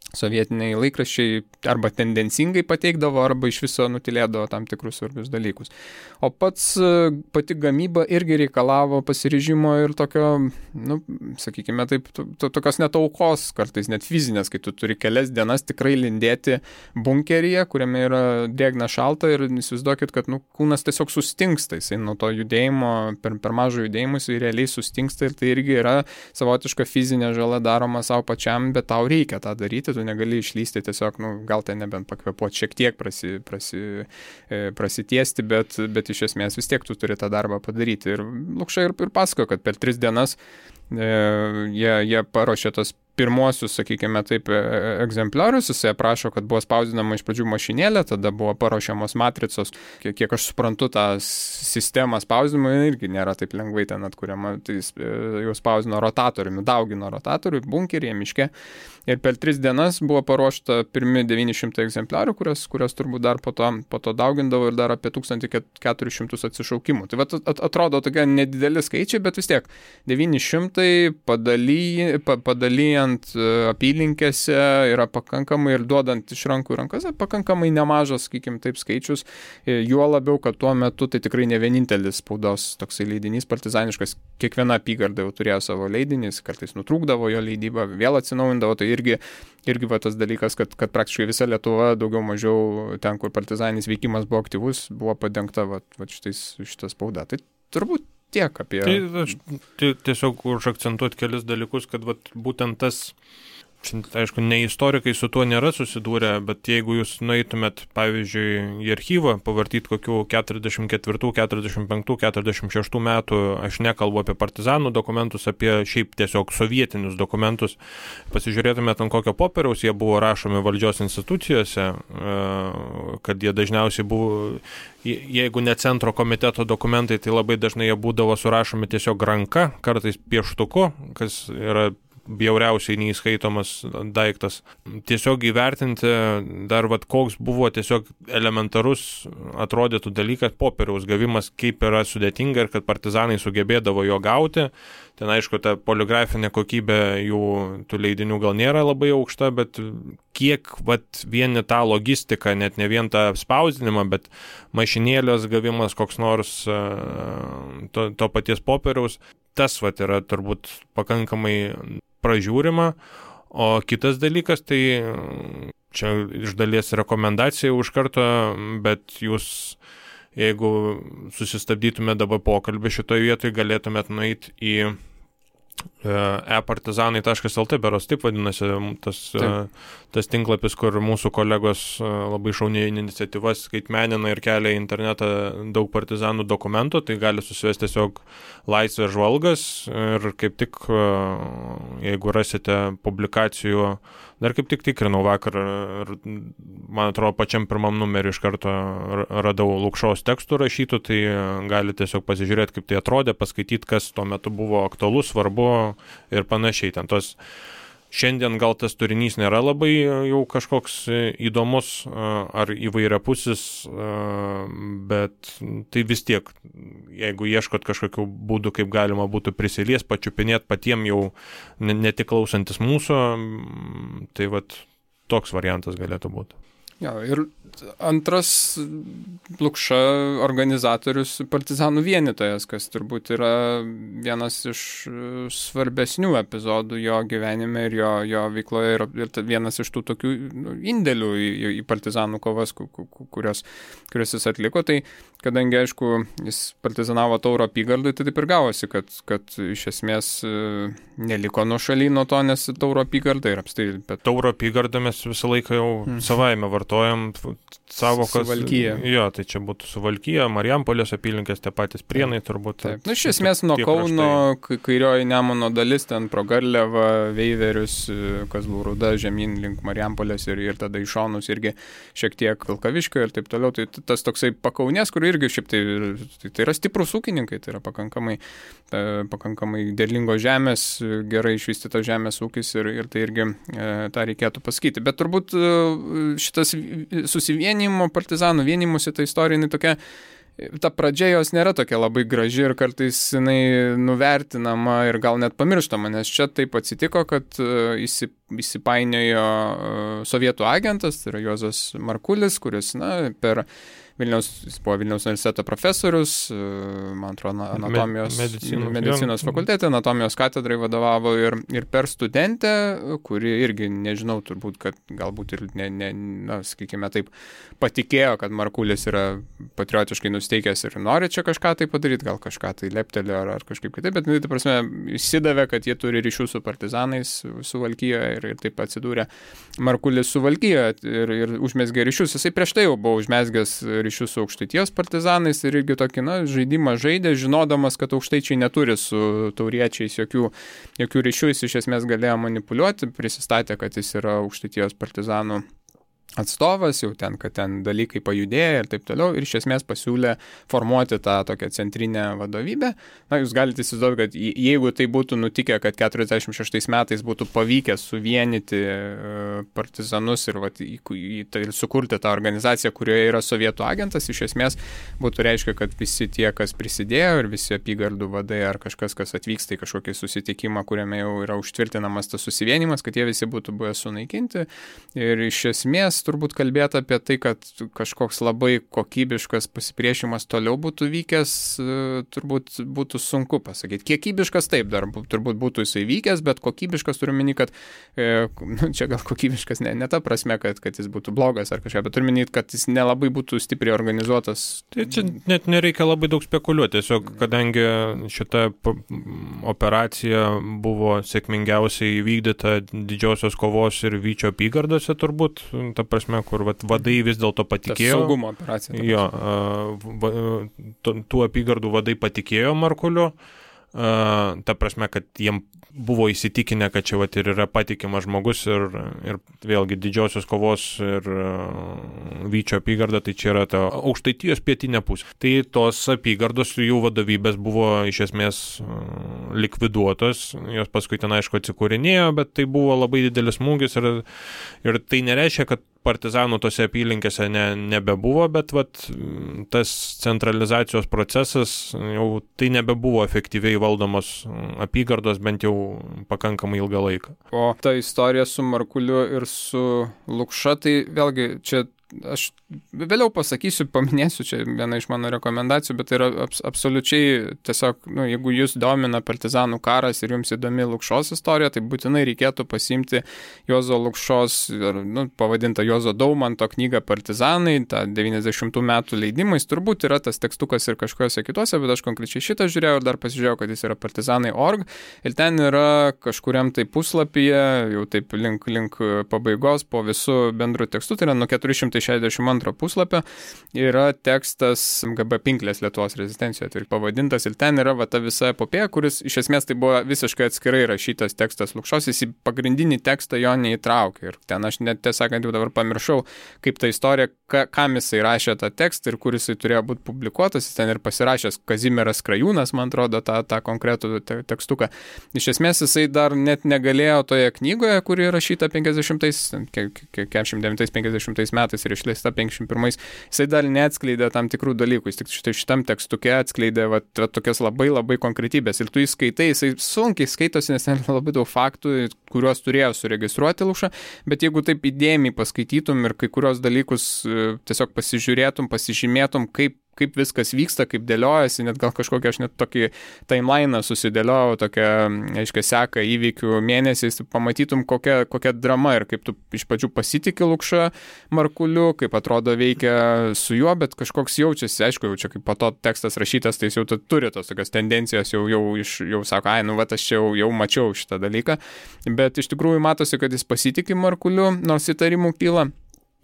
sovietiniai laikraščiai arba tendencingai pateikdavo, arba iš viso nutilėdavo tam tikrus svarbius dalykus. O pati gamyba irgi reikalavo pasiryžimo ir tokio, sakykime taip, tokios net aukos, kartais net fizinės, kai tu turi kelias dienas tikrai lindėti bunkeryje, kuriame yra drėgna šalta ir įsivaizduokit, kad kūnas tiesiog sustingsta, jisai nuo to judėjimo, per mažo judėjimo jisai realiai sustingsta ir tai irgi yra savotiška fizinė žala daroma savo pačiam, bet tau reikia tą daryti, tu negali išlysti tiesiog, gal ten nebent pakvepuoti šiek tiek prasitiesti, bet iš esmės vis tiek tu turi tą darbą padaryti. Ir Lukša ir pasakojo, kad per 3 dienas jie paruošė tos pirmuosius, sakykime taip, egzempliorius, jisai aprašo, kad buvo spausdinama iš pradžių mašinėlė, tada buvo paruošiamos matricos, kiek aš suprantu, tą sistemą spausdinimo irgi nėra taip lengvai ten atkuriama, tai jau spausdino rotatoriumi, daugino rotatorių, bunkeryje, miške, ir per 3 dienas buvo paruošta pirmi 900 egzempliorių, kurios turbūt dar po to daugindavo ir dar apie 1400 atsišaukimų. Tai atrodo tokie nedideli skaičiai, bet vis tiek 900 padalyjant apylinkėse yra pakankamai ir duodant iš rankų į rankas pakankamai nemažas, sakykime, taip skaičius, juo labiau, kad tuo metu tai tikrai ne vienintelis spaudos toksai leidinys partizaniškas, kiekviena apygarda jau turėjo savo leidinį, kartais nutrūkdavo jo leidybą, vėl atsinaujindavo, tai irgi va tas dalykas, kad praktiškai visa Lietuva daugiau mažiau ten, kur partizaninis veikimas buvo aktyvus, buvo padengta šitą spaudą. Tai turbūt tiek apie... Tai aš tiesiog užakcentuoti kelis dalykus, kad būtent tas, aišku, ne istorikai su tuo nėra susidūrę, bet jeigu jūs nueitumėt, pavyzdžiui, į archyvą, pavartyti kokių 44, 45, 46 metų, aš nekalbu apie partizanų dokumentus, apie šiaip tiesiog sovietinius dokumentus, pasižiūrėtumėt ant kokio popieriaus jie buvo rašomi valdžios institucijose, kad jie dažniausiai buvo, jeigu ne centro komiteto dokumentai, tai labai dažnai jie būdavo surašomi tiesiog ranka, kartais pieštuku, kas yra bjauriausiai neįskaitomas daiktas. Tiesiog įvertinti dar koks buvo tiesiog elementarus atrodytų dalykas, popieriaus gavimas, kaip yra sudėtinga ir kad partizanai sugebėdavo jo gauti. Ten aišku, ta poligrafinė kokybė jų tų leidinių gal nėra labai aukšta, bet kiek vieni tą logistiką, net ne vien tą spausdinimą, bet mašinėlės gavimas koks nors to paties popieriaus, tas yra turbūt pakankamai pražiūrima, o kitas dalykas, tai čia iš dalies rekomendacija už karto, bet jūs, jeigu susistabdytume dabar pokalbį šitoje vietoje, galėtumėt nueiti į epartizanai.lt, beros taip vadinasi tas tinklapis, kur mūsų kolegos labai šauniai iniciatyvas skaitmenina ir kelia į internetą daug partizanų dokumentų, tai gali susivesti tiesiog Laisvės žvalgas ir kaip tik, jeigu rasite publikacijų, dar kaip tik tikrinau vakar ir man atrodo pačiam pirmam numeriu iš karto radau Lukšos tekstų rašytų, tai gali tiesiog pasižiūrėti, kaip tai atrodė, paskaityti, kas tuo metu buvo aktualu, svarbu ir panašiai. Ten tos šiandien gal tas turinys nėra labai jau kažkoks įdomus ar įvairiapusis, bet tai vis tiek, jeigu ieškot kažkokių būdų, kaip galima būtų prisilies, pačiupinėti patiem jau ne tik klausantis mūsų, tai toks variantas galėtų būti. Jo, ir antras Lukša organizatorius partizanų vienytojas, kas turbūt yra vienas iš svarbesnių epizodų jo gyvenime ir jo veikloje ir vienas iš tų tokių indėlių į partizanų kovas, kurios jis atliko. Tai kadangi, aišku, jis partizanavo Tauro apygardai, tai taip ir gavosi, kad iš esmės neliko nuošaly nuo to, nes Tauro apygarda ir apstai. Bet... Tauro apygardą mes visą laiką jau savaime vartojam savokas. Suvalkija. Jo, tai čia būtų Suvalkija, Marijampolės apylinkės, tie patys Prienai turbūt. Taip. Iš esmės nuo Kauno, kairioji Nemuno dalis, ten pro Garliavą, Veiverius, Kazlų Rūda, žemyn link Marijampolės ir tada į šonus irgi šiek tiek Vilkaviškio ir taip toliau. Tai tas toksai pakaunės, kur irgi šiaip tai yra stiprus ūkininkai, tai yra pakankamai derlingos žemės, gerai išvystytos žemės ūkis ir tai irgi tą reikėtų pasakyti. Bet turbūt šitas susivienimo partizanų vienimusi ta istorija, jinai tokia, ta pradžia jos nėra tokia labai graži ir kartais jinai nuvertinama ir gal net pamirštama, nes čia taip atsitiko, kad įsipainiojo sovietų agentas, tai yra Juozas Markulis, kuris, jis buvo Vilniaus universiteto profesorius, man atrodo, medicinos fakultete, anatomijos katedrai vadovavo ir per studentę, kuri irgi, nežinau, turbūt, kad galbūt ir sakykime taip, patikėjo, kad Markulis yra patriotiškai nusteikęs ir nori čia kažką tai padaryti, gal kažką tai leptelė ar kažkaip kitaip, bet tai prasme įsidavė, kad jie turi ryšių su partizanais Suvalkijoje ir taip atsidūrė Markulis Suvalkijoje ir užmezgė ryšius. Jisai prieš tai jau buvo užmezgęs ryšius su Aukštaitijos partizanais ir irgi tokį žaidimą žaidė, žinodamas, kad aukštaičiai neturi su tauriečiais jokių ryšių, jis iš esmės galėjo manipuliuoti, prisistatė, kad jis yra Aukštaitijos partizanų atstovas, jau kad ten dalykai pajudėjo ir taip toliau, ir iš esmės pasiūlė formuoti tą tokią centrinę vadovybę. Jūs galite įsivaizduoti, kad jeigu tai būtų nutikę, kad 46 metais būtų pavykę suvienyti partizanus ir sukurti tą organizaciją, kurioje yra sovietų agentas, iš esmės būtų reiškia, kad visi tie, kas prisidėjo ir visi apygardų vadai ar kažkas, kas atvyksta į kažkokį susitikimą, kuriame jau yra užtvirtinamas tas susivienimas, kad jie visi būtų buvę sunaikinti. Ir iš esmės turbūt kalbėti apie tai, kad kažkoks labai kokybiškas pasipriešimas toliau būtų vykęs, turbūt būtų sunku pasakyti. Kiekybiškas taip, dar turbūt būtų jisai vykęs, bet kokybiškas turiu minį, kad čia gal kokybiškas ne ta prasme, kad jis būtų blogas ar kažką, bet turiu minį, kad jis nelabai būtų stipriai organizuotas. Tai čia net nereikia labai daug spekuliuoti, tiesiog kadangi šita operacija buvo sėkmingiausiai įvykdyta Didžiosios kovos ir Vyčio apygardose turbūt, ta prasme, kur vadai vis dėlto patikėjo. Tas saugumo operacija. Jo, tų apygardų vadai patikėjo Markuliu, ta prasme, kad jiem buvo įsitikinę, kad čia ir yra patikimas žmogus ir vėlgi Didžiosios kovos ir Vyčio apygarda, tai čia yra ta Aukštaitijos pietinė pusė. Tai tos apygardos jų vadovybės buvo iš esmės likviduotos, jos paskui ten aišku atsikūrinėjo, bet tai buvo labai didelis smūgis ir tai nereiškia, kad partizanų tose apylinkėse nebebuvo, bet tas centralizacijos procesas jau tai nebebuvo efektyviai valdomos apygardos bent jau pakankamai ilgą laiką. O ta istorija su Markuliu ir su Lukša, tai vėlgi čia aš vėliau pasakysiu, paminėsiu, čia viena iš mano rekomendacijų, bet tai yra absoliučiai tiesiog, jeigu jūs domina partizanų karas ir jums įdomi Lukšos istorija, tai būtinai reikėtų pasiimti Juozo Lukšos, pavadintą Juozo Daumanto knygą Partizanai, tą 90 metų leidimais, turbūt yra tas tekstukas ir kažkokiuose kituose, bet aš konkrečiai šitą žiūrėjau ir dar pasižiūrėjau, kad jis yra partizanai.org ir ten yra kažkuriam tai puslapyje, jau taip link pabaigos po visų bendrų tekstų, tai yra nuo 462 puslapio yra tekstas GB Pinklės Lietuvos rezistencijoje, tai pavadintas ir ten yra ta visa epopėja, kuris iš esmės tai buvo visiškai atskirai rašytas tekstas Lukšos, jis į pagrindinį tekstą jo neįtraukė ir ten aš net tiesąkant jau dabar pamiršau, kaip ta istorija, kam jisai rašė tą tekstą ir kur jisai turėjo būti publikuotas, jis ten ir pasirašęs Kazimieras Krajūnas, man atrodo, tą konkretų tekstuką. Iš esmės jisai dar net negalėjo toje knygoje, kuri rašyta 49 metais ir išleista 51, jisai dar neatskleidė tam tikrų dalykų, jis tik šitam tekstuke atskleidė tokias labai labai konkretybės ir tu įskaitai, jisai sunkiai skaitosi, nes ten labai daug faktų, kuriuos turėjo suregistruoti Lukša, bet jeigu taip įdėmiai paskaitytum ir kai kurios dalykus tiesiog pasižiūrėtum, pasižymėtum, kaip viskas vyksta, kaip dėliojasi, net gal kažkokią aš net tokį timeliną susidėliojau, tokią, aiškiai, seką įvykių mėnesiais, pamatytum kokia drama ir kaip tu iš pradžių pasitiki Lukša Markuliu, kaip atrodo veikia su juo, bet kažkoks jaučiasi, aišku, jau čia kaip po to tekstas rašytas, tai jis jau turi tos tokios tendencijos, jau sako, aš čia jau mačiau šitą dalyką, bet iš tikrųjų matosi, kad jis pasitiki Markuliu, nors įtarimų kyla.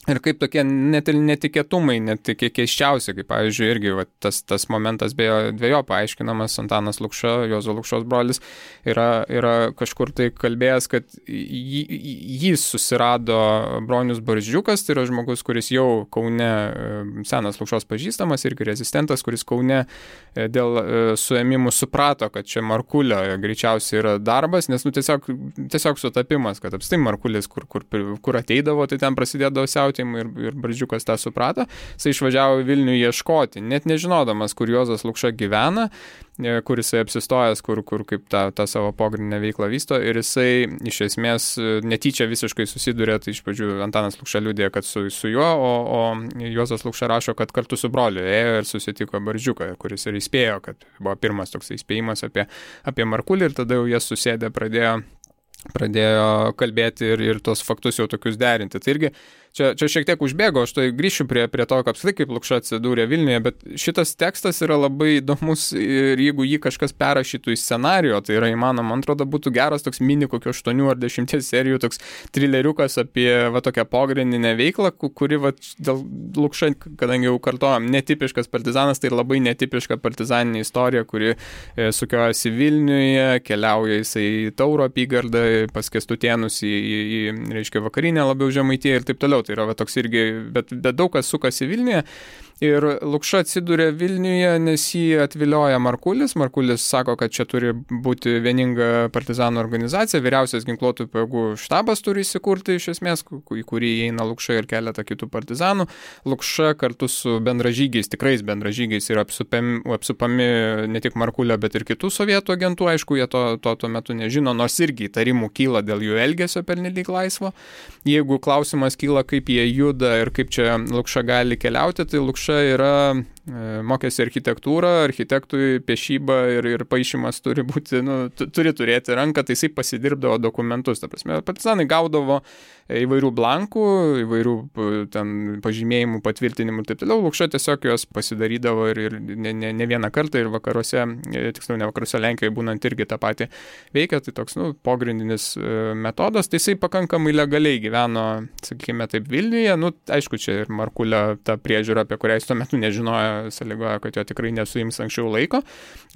Ir kaip tokie net ir netikėtumai, net keiščiausi, kaip pavyzdžiui, irgi tas momentas beje dviejo paaiškinamas, Antanas Lukša, Juozo Lukšos brolis, yra kažkur tai kalbėjęs, kad jį susirado Bronius Barzdžiukas, tai yra žmogus, kuris jau Kaune, senas Lukšos pažįstamas, irgi rezistentas, kuris Kaune dėl suėmimų suprato, kad čia Markulio greičiausiai yra darbas, nes tiesiog sutapimas, kad apstai Markulis, kur ateidavo, tai ten prasidėdavo siautėjimai ir Barzdžiukas tą suprato, jisai išvažiavo į Vilnių ieškoti, net nežinodamas, kur Juozas Lukša gyvena, kur jisai apsistojęs, kur kaip tą savo pogrindinę veiklą vysto ir jisai iš esmės netyčia visiškai susiduria, tai iš pradžių Antanas Lukša liudija, kad su juo, o Juozas Lukša rašo, kad kartu su broliu ėjo ir susitiko Barzdžiuką, kuris ir įspėjo, kad buvo pirmas toks įspėjimas apie Markulį ir tada jau jie susėdė, pradėjo kalbėti ir tos faktus jau tokius derinti. Tai irgi čia šiek tiek užbėgo, aš tai grįšiu prie to, kaip Lukša atsidūrė Vilniuje, bet šitas tekstas yra labai įdomus ir jeigu jį kažkas perrašytų į scenarijų, tai yra įmanoma, man atrodo, būtų geras toks mini kokio 8 ar 10 serijų toks trileriukas apie tokią pogrindinę veiklą, kuri dėl Lukša, kadangi jau kartojam, netipiškas partizanas, tai labai netipiška partizaninė istorija, kuri sukiojasi Vilniuje, keliauja jisai į Tauro apygardą, pas Kęstutėnus reiškia vakarinę labiau Žemaitiją ir taip toliau. Tai yra toks irgi, bet daug kas sukasi Vilniuje. Ir Lukša atsiduria Vilniuje, nes jį atvilioja Markulis. Markulis sako, kad čia turi būti vieninga partizanų organizacija, vyriausias ginkluotų pajėgų štabas turi įsikurti iš esmės, į kurį įeina Lukša ir keletą kitų partizanų. Lukša kartu su bendražygiais, tikrais bendražygiais yra apsupami ne tik Markulio, bet ir kitų sovietų agentų. Aišku, jie tuo metu nežino, nors irgi įtarimų kyla dėl jų elgesio pernelyg laisvo. Jeigu klausimas kyla, kaip jie juda ir kaip čia Lukša gali keliauti, tai Lukša yra mokėsi architektūrą, architektui piešyba ir paišymas turi būti, turi turėti ranką, tai jisai pasidirbdavo dokumentus. Ta prasme, partizanai gaudavo įvairių blankų, įvairių ten pažymėjimų, patvirtinimų ir taip toliau. Lukša tiesiog juos pasidarydavo ir ne vieną kartą ir vakaruose, tiksliau ne vakaruose, Lenkijoje būnant irgi tą patį veikia, tai toks pogrindinis metodas. Tai jisai pakankamai legaliai gyveno, sakykime taip, Vilniuje. Aišku, čia ir Markulio ta priežiūra, apie kurią jis tuo metu nežinojo, sąlygoja, kad jo tikrai nesuims anksčiau laiko,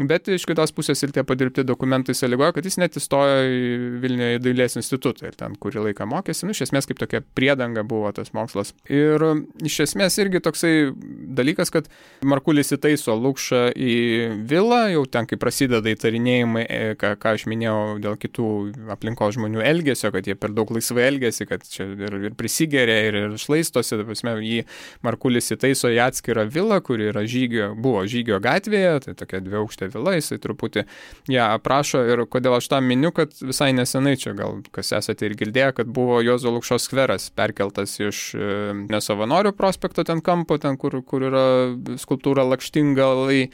bet iš kitos pusės ir tie padirbti dokumentai sąlygoja, kad jis net įstojo į Vilniuje į Dailės institutą ir ten kurį laiką mokėsi. Iš esmės kaip tokia priedanga buvo tas mokslas. Ir iš esmės irgi toksai dalykas, kad Markulis įtaiso Lukšą į vilą, jau ten, kai prasideda įtarinėjimai, ką aš minėjau dėl kitų aplinkos žmonių elgesio, kad jie per daug laisvai elgesi, kad čia ir prisigeria, ir šlaistosi, jį Markulis įtaiso į atskirą vilą, kuri yra buvo Žygio gatvėje, tai tokia dviaukštė vila, jisai truputį ją aprašo ir kodėl aš tą miniu, kad visai nesenai čia gal kas esate ir girdėję, kad buvo Juozo Lukšos skveras perkeltas iš Nesavanorių prospekto ten kampo, ten kur yra skulptūra Lakštingalai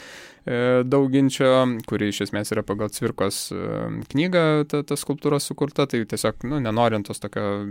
Dauginčio, kuri iš esmės yra pagal Cvirkos knygą ta skulptūra sukurta, tai tiesiog, nenorint tos tokio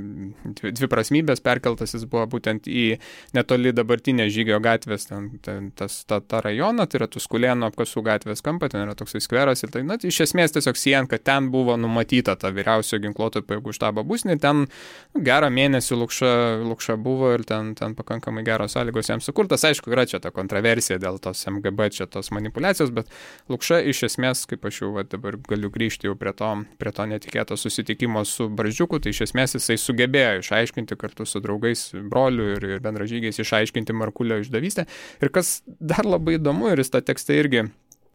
dviprasmybės perkeltas jis buvo būtent į netoli dabartinę Žygio gatvės, tą rajoną, tai yra Tuskulėnų apkasų gatvės kampą, ten yra toksai skveras ir tai, iš esmės tiesiog siejant, kad ten buvo numatyta ta vyriausio ginkluotų pajėgų štabo būstinė, ten gerą mėnesį Lukša buvo ir ten pakankamai geros sąlygos jam sukurtas. Aišku, yra čia ta kontroversija dėl tos MGB, čia tos manipulacijos, bet Lukša iš esmės, kaip aš jau dabar galiu grįžti jau prie to netikėto susitikimo su Barzdžiuku, tai iš esmės jisai sugebėjo išaiškinti kartu su draugais, broliu ir bendražygiais išaiškinti Markulio išdavystę. Ir kas dar labai įdomu, ir jis tą tekstą irgi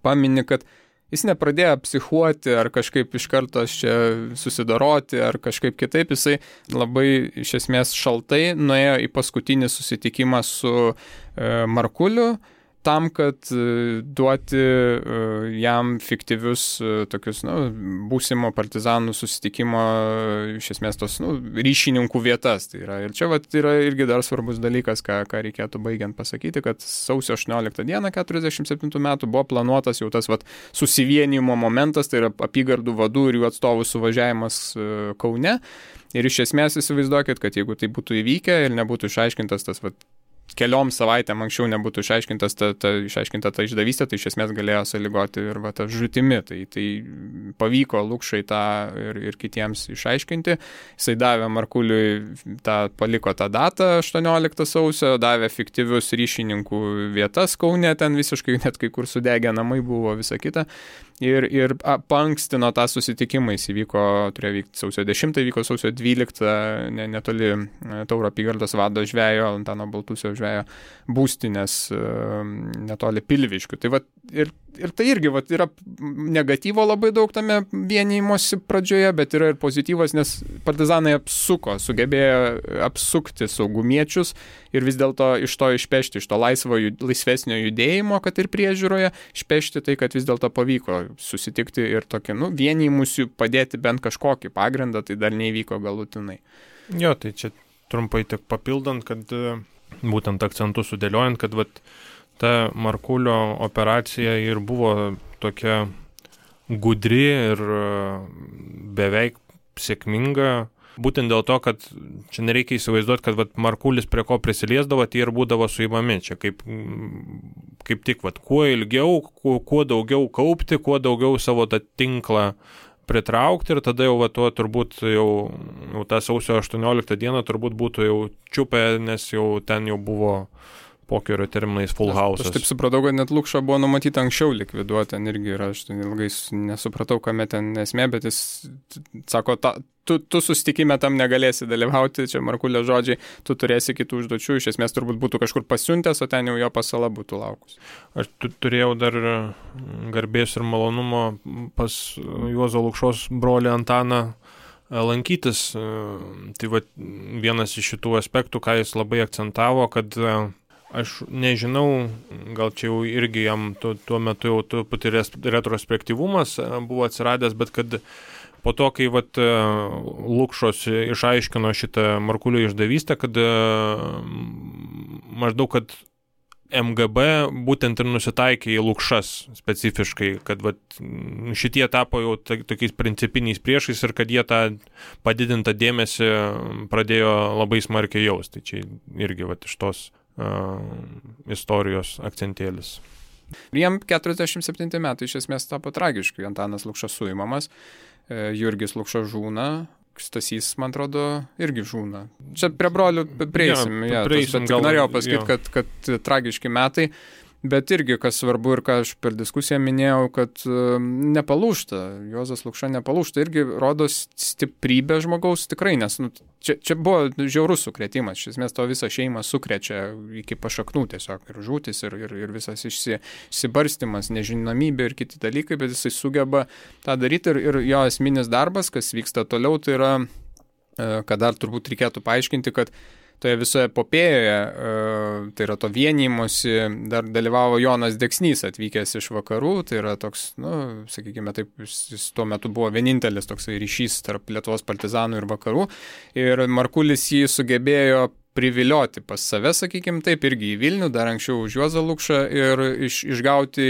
pamini, kad Jis nepradėjo psichuoti ar kažkaip iš karto čia susidoroti ar kažkaip kitaip, jisai labai iš esmės šaltai nuėjo į paskutinį susitikimą su Markuliu, tam, kad duoti jam fiktyvius tokius, būsimo partizanų susitikimo, iš esmės tos, ryšininkų vietas. Tai yra. Ir čia yra irgi dar svarbus dalykas, ką reikėtų baigiant pasakyti, kad sausio 18 dieną 47 metų buvo planuotas jau tas susivienijimo momentas, tai yra apygardų vadų ir jų atstovų suvažiavimas Kaune. Ir iš esmės įsivaizduokit, kad jeigu tai būtų įvykę ir nebūtų išaiškintas tas keliom savaitėm anksčiau nebūtų išaiškinta ta išdavystė, tai iš esmės galėjo sąlygoti ir ta žūtimi. Tai pavyko Lukšai tą ir kitiems išaiškinti. Jisai davė Markuliui, paliko tą datą 18 sausio, davė fiktyvius ryšininkų vietas Kaune, ten visiškai net kai kur sudegę namai buvo, visa kita. Ir paankstino tą susitikimą, jis turėjo vykti sausio 10, vyko sausio 12, netoli Tauro apygardos vado žvejo, Antano Baltusio žvejo būstinės, netoli Pilviškių. Tai ir tai irgi yra negatyvo labai daug tame vienijimosi pradžioje, bet yra ir pozityvas, nes partizanai sugebėjo apsukti saugumiečius ir vis dėlto iš to išpešti, iš to laisvesnio judėjimo, kad ir priežiūroje, išpešti tai, kad vis dėlto pavyko susitikti ir tokį, vienijimusių padėti bent kažkokį pagrindą, tai dar neįvyko galutinai. Jo, tai čia trumpai tik papildant, kad būtent akcentus sudėliojant, kad ta Markulio operacija ir buvo tokia gudri ir beveik sėkminga, būtent dėl to, kad čia nereikia įsivaizduoti, kad Markulis prie ko prisiliesdavo, tai ir būdavo suimami. Čia kaip tik, kuo ilgiau, kuo daugiau kaupti, kuo daugiau savo tą tinklą pritraukti ir tada jau tuo turbūt jau tą sausio 18 dieną turbūt būtų jau čiupę, nes jau ten jau buvo pokerio terminais full house. Aš taip supratau, kad net Lukšą buvo numatyta anksčiau likviduoti, ten irgi yra, aš ilgai nesupratau, kame ten esmė, bet jis sako, tu susitikime tam negalėsi dalyvauti, čia Markulio žodžiai, tu turėsi kitų užduočių, iš esmės turbūt būtų kažkur pasiuntęs, o ten jau jo pasala būtų laukus. Aš turėjau dar garbės ir malonumo pas Juozo Lukšos brolį Antaną lankytis. Tai vienas iš šitų aspektų, ką jis labai akcentavo, kad aš nežinau, gal čia jau irgi jam tuo metu jau truputį retrospektyvumas buvo atsiradęs, bet kad po to, kai Lukšos išaiškino šitą Markulio išdavystę, kad maždaug, kad MGB būtent ir nusitaikė į Lukšas specifiškai, kad šitie tapo jau tokiais principiniais priešais ir kad jie tą padidintą dėmesį pradėjo labai smarkiai jausti. Tai čia irgi iš tos istorijos akcentėlis. Jiem 47 metai iš esmės tapo tragiškai. Antanas Lukša suimamas, Jurgis Lukša žūna, Stasys, man atrodo, irgi žūna. Čia prie brolių prieisim. Bet norėjau pasakyti, kad tragiški metai. Bet irgi, kas svarbu ir ką aš per diskusiją minėjau, kad nepalūžta, Juozas Lukša nepalūžta, irgi rodo stiprybę žmogaus tikrai, nes čia buvo žiaurus sukrėtimas, iš esmės to visą šeimą sukrečia iki pašaknų tiesiog ir žūtis, ir visas išsibarstimas, nežinomybė ir kiti dalykai, bet jisai sugeba tą daryti ir jo esminis darbas, kas vyksta toliau, tai yra, kad dar turbūt reikėtų paaiškinti, kad toje visoje epopėjoje, tai yra to vienijimosi, dar dalyvavo Jonas Deksnys atvykęs iš vakarų, tai yra toks, sakykime taip, jis tuo metu buvo vienintelis toksai ryšys tarp Lietuvos partizanų ir vakarų, ir Markulis jį sugebėjo privilioti pas save, sakykime taip, irgi į Vilnių, dar anksčiau už Juozą Lukšą ir išgauti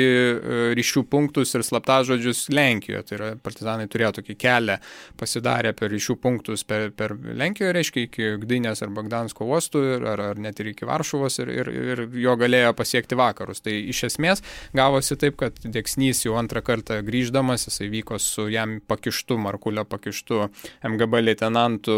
ryšių punktus ir slaptažodžius Lenkijoje. Tai yra, partizanai turėjo tokį kelią pasidarę per ryšių punktus per Lenkijoje, reiškia iki Gdynės arba Gdansko uostų ar net ir iki Varšuvos ir jo galėjo pasiekti vakarus. Tai iš esmės gavosi taip, kad Deksnys jau antrą kartą grįždamas, jisai vyko su jam Markulio pakištu MGB leitenantu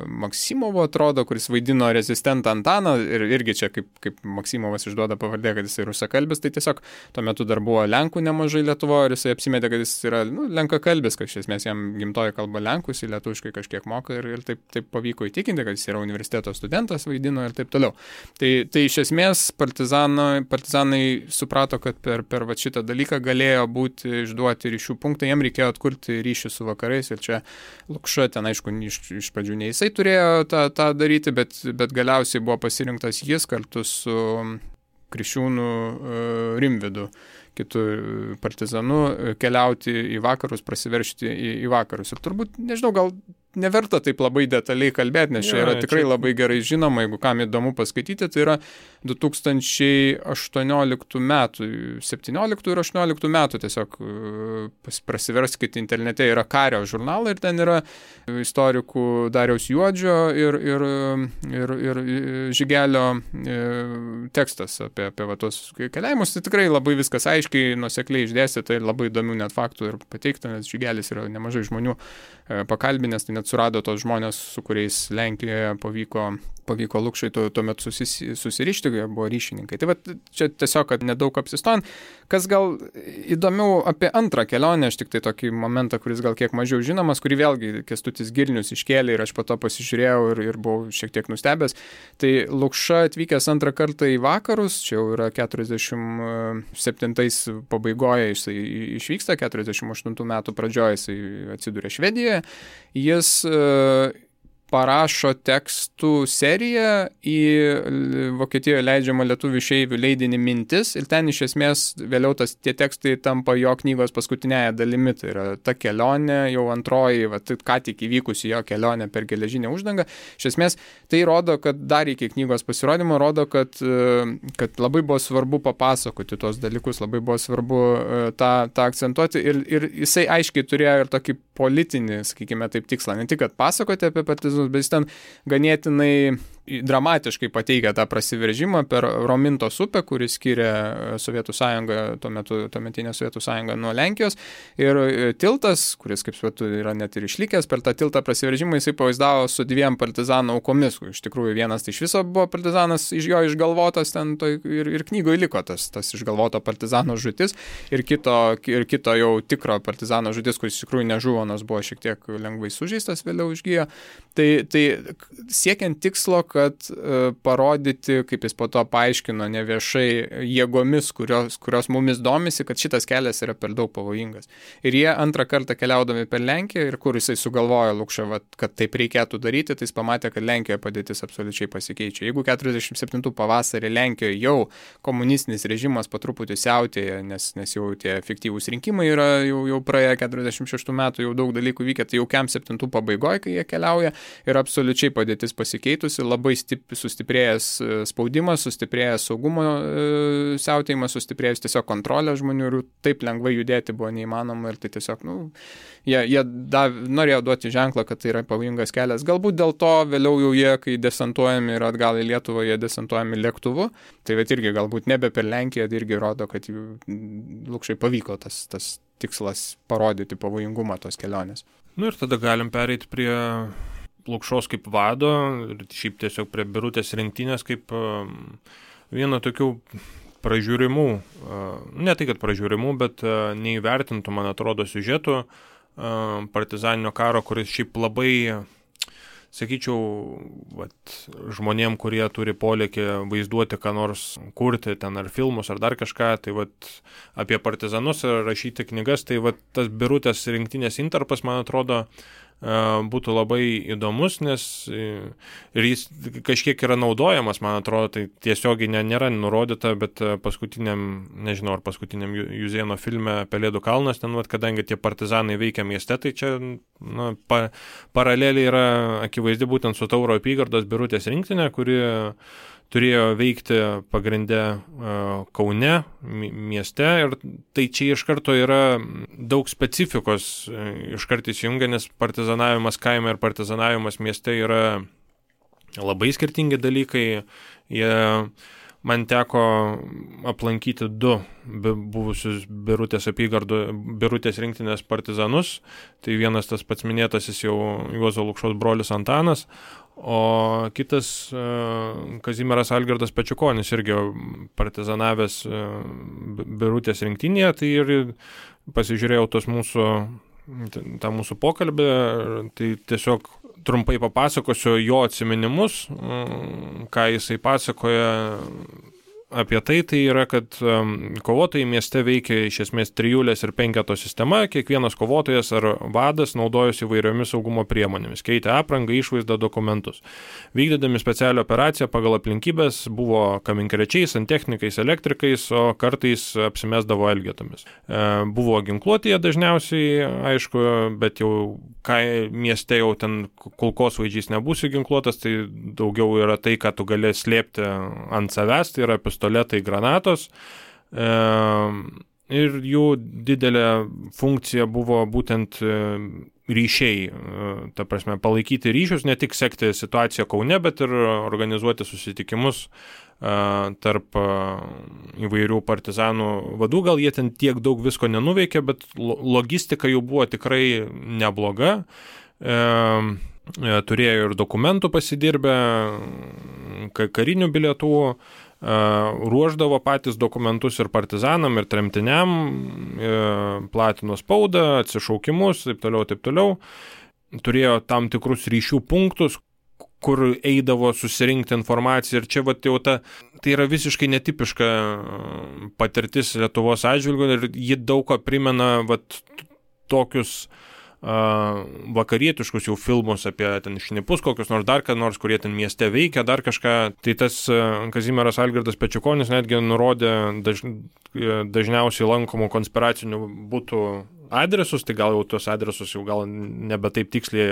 Maksimovu, atrodo, kuris vaidino rezidentų asistentą Antaną ir irgi čia kaip Maksimovas išduoda pavardę, kad jis rusakalbis, tai tiesiog tuo metu dar buvo lenkų nemažai Lietuvoje ir jisai apsimetė, kad jis yra lenkakalbis, kad iš esmės jam gimtoji kalba lenkų, jis lietuviškai kažkiek moka ir taip pavyko įtikinti, kad jis yra universiteto studentas, vaidino ir taip toliau. Tai iš esmės partizanai suprato, kad per va šitą dalyką galėjo būti išduoti ryšių punktą, jam reikėjo atkurti ryšį su vakarais ir čia Lukša ten, aišku, iš pradžių ne jisai turėjo tą daryti, bet galiausiai buvo pasirinktas jis kartu su Kriščiūnu Rimvydu, kitų partizanų, keliauti į vakarus, prasiveržti į vakarus. Ir turbūt, nežinau, gal neverta taip labai detaliai kalbėti, nes čia yra tikrai labai gerai žinoma, jeigu kam įdomu paskaityti, tai yra 2018 metų, 17 ir 18 metų tiesiog prasiverskite internete, yra Kario žurnalai ir ten yra istorikų Dariaus Juodžio ir Žigelio tekstas apie va tos keliavimus. Tai tikrai labai viskas aiškiai, nuosekliai išdėstyta ir labai įdomių net faktų ir pateikta, nes Žigelis yra nemažai žmonių pakalbinęs, tai net surado tos žmonės, su kuriais Lenkijoje pavyko Lukšai tuo metu susirišti, buvo ryšininkai. Tai va, čia tiesiog, kad nedaug apsistojant. Kas gal įdomiau apie antrą kelionę, aš tik tai tokį momentą, kuris gal kiek mažiau žinomas, kurį vėlgi Kęstutis Girnius iškėlė ir aš po to pasižiūrėjau ir buvau šiek tiek nustebęs. Tai Lukša atvykęs antrą kartą į vakarus, čia jau yra 47 pabaigoje jisai išvyksta, 48 metų pradžioje jisai atsiduria Švedijoje. Jis parašo tekstų seriją į Vokietijoje leidžiamą lietuvių išeivių leidinį Mintis ir ten iš esmės vėliau tie tekstai tampa jo knygos paskutinėje dalimi. Tai yra ta kelionė, jau antroji, ką tik įvykusi jo kelionė per geležinę uždangą. Iš esmės tai rodo, kad dar iki knygos pasirodymo rodo, kad labai buvo svarbu papasakoti tos dalykus, labai buvo svarbu tą akcentuoti ir jisai aiškiai turėjo ir tokį politinį, sakykime taip, tikslą. Ne tik, kad pasakoti apie partizanus, bet jis ten ganėtinai dramatiškai pateikia tą prasiveržimą per Romintos upę, kuris skiria Sovietų sąjungą, tuometinę Sovietų sąjungą nuo Lenkijos. Ir tiltas, kuris, kaip suprantu, yra net ir išlikęs, per tą tiltą prasiveržimą jisai pavaizdavo su 2 partizanų aukomis. Iš tikrųjų, vienas tai iš viso buvo partizanas, iš jo išgalvotas ten ir knygoje liko tas išgalvoto partizano žūtis ir kito jau tikro partizano žūtis, kuris iš tikrųjų nežuvo, nors buvo šiek tiek lengvai sužeistas, vėliau išgijo. Tai siekiant tikslo, kad parodyti, kaip jis po to paaiškino neviešai jėgomis, kurios mumis domisi, kad šitas kelias yra per daug pavojingas. Ir jie antrą kartą keliaudami per Lenkiją ir kur jisai sugalvojo Lukša, kad taip reikėtų daryti, tai jis pamatė, kad Lenkijoje padėtis absoliučiai pasikeičia. Jeigu 47 pavasarį Lenkijoje jau komunistinis režimas po truputį siautėja, nes jau tie efektyvūs rinkimai yra jau praėję 46 metų, jau daug dalykų vykę, tai jau 7 pabaigoje, kai jie keliauja, ir absoliučiai padėtis pasikeitusi, labai sustiprėjęs spaudimas, sustiprėjęs saugumo siautėjimas, sustiprėjęs tiesiog kontrolę žmonių ir taip lengvai judėti buvo neįmanoma ir tai tiesiog, jie norėjo duoti ženklą, kad tai yra pavojingas kelias. Galbūt dėl to vėliau jau jie, kai desantuojami ir atgal į Lietuvą, jie desantuojami lėktuvu, tai irgi galbūt nebe per Lenkiją, tai irgi rodo, kad Lukšai pavyko tas tikslas parodyti pavojingumą tos kelionės. Ir tada galim pereiti prie Lukšos kaip vado ir šiaip tiesiog prie Birutės rinktinės kaip vieno tokių pražiūrimų, ne tai kad pražiūrimų, bet neįvertintų, man atrodo, siužetų partizaninio karo, kuris šiaip labai, sakyčiau, žmonėm, kurie turi polėkį vaizduoti, ką nors kurti ten ar filmus ar dar kažką, tai apie partizanus rašyti knygas, tai tas Birutės rinktinės intarpas, man atrodo, būtų labai įdomus, nes ir jis kažkiek yra naudojamas, man atrodo, tai tiesiogiai nėra nurodyta, bet paskutiniam Juzėno filme Pelėdų kalnas, ten, kadangi tie partizanai veikia mieste, tai čia paraleliai yra akivaizdi būtent su Tauro apygardos Birutės rinktinė, kuri turėjo veikti pagrindę Kaune mieste ir tai čia iš karto yra daug specifikos iškart įsijungia, nes partizanavimas kaime ir partizanavimas mieste yra labai skirtingi dalykai. Man teko aplankyti 2 buvusius Birutės rinktinės partizanus. Tai vienas tas pats minėtasis jau Juozo Lukšos brolis Antanas, O kitas Kazimieras Algirdas Pečiukonis irgi partizanavęs Birutės rinktinėje, tai ir pasižiūrėjau tą mūsų pokalbį, tai tiesiog trumpai papasakosiu jo atsiminimus, ką jisai pasakoja apie tai yra, kad kovotojai mieste veikia iš esmės trijulės ir penketo sistema, kiekvienas kovotojas ar vadas naudojosi įvairiomis saugumo priemonėmis, keitė aprangą, išvaizdą, dokumentus. Vykdydami specialią operaciją pagal aplinkybės buvo kaminkrečiais, santechnikais, elektrikais, o kartais apsimesdavo elgetomis. Buvo ginkluotėje dažniausiai, aišku, bet jau mieste jau ten kulkosvaidžiais nebūsi ginkluotas, tai daugiau yra tai, ką tu gali slėpti ant savęs, tai yra pistoletai, granatos. Ir jų didelė funkcija buvo būtent ryšiai, ta prasme, palaikyti ryšius, ne tik sekti situaciją Kaune, bet ir organizuoti susitikimus tarp įvairių partizanų vadų. Gal jie ten tiek daug visko nenuveikė, bet logistika jų buvo tikrai nebloga. Turėjo ir dokumentų pasidirbę, karinių bilietų, ruoždavo patys dokumentus ir partizanam, ir tremtiniam, platino spaudą, atsišaukimus, taip toliau. Turėjo tam tikrus ryšių punktus, kur eidavo susirinkti informaciją, ir čia jau tai yra visiškai netipiška patirtis Lietuvos atžvilgiu, ir ji daug ką primena tokius vakarietiškus jau filmus apie ten šnipus, kokius nors dar ką nors, kurie ten mieste veikia, dar kažką. Tai tas Kazimieras Algirdas Pečiukonis netgi nurodė dažniausiai lankomų konspiracinių butų adresus, tai gal jau tuos adresus jau gal nebe taip tiksliai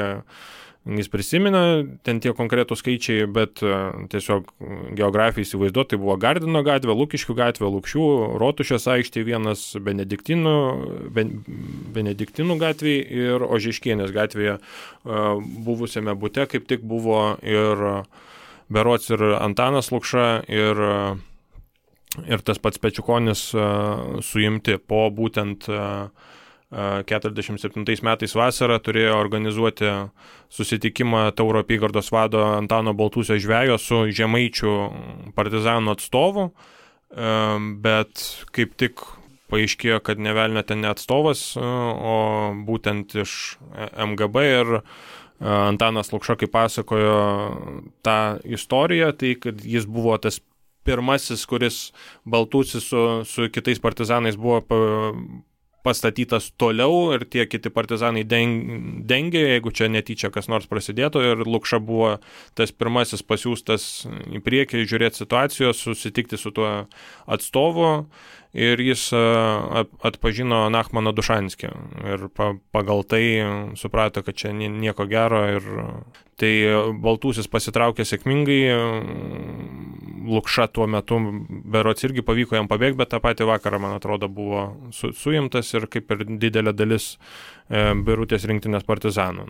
jis prisimena, ten tie konkretų skaičiai, bet tiesiog geografijai įsivaizduoti, tai buvo Gardino gatvė, Lukiškių gatvė, Lukšių, Rotušės aikštė vienas, Benediktinų gatvėje ir Ožeškienės gatvėje buvusiame bute kaip tik buvo ir berods ir Antanas Lukša ir tas pats Pečiukonis suimti po būtent 47 metais vasarą turėjo organizuoti susitikimą Tauro apygardos vado Antano Baltūsio žvejo su žemaičių partizanų atstovu, bet kaip tik paaiškėjo, kad ne velnio ten ne atstovas, o būtent iš MGB, ir Antanas Lukša, kaip pasakojo tą istoriją, tai kad jis buvo tas pirmasis, kuris Baltūsis su kitais partizanais buvo pastatytas toliau, ir tie kiti partizanai dengė, jeigu čia netyčia kas nors prasidėtų, ir Lukša buvo tas pirmasis pasiųstas į priekį žiūrėti situacijos, susitikti su tuo atstovu, ir jis atpažino Nachmaną Dušanskį ir pagal tai suprato, kad čia nieko gero, ir tai Baltūsis pasitraukė sėkmingai. Lukša tuo metu berods irgi pavyko jam pabėgti, bet tą patį vakarą, man atrodo, buvo suimtas, ir kaip ir didelė dalis Birutės rinktinės partizanų.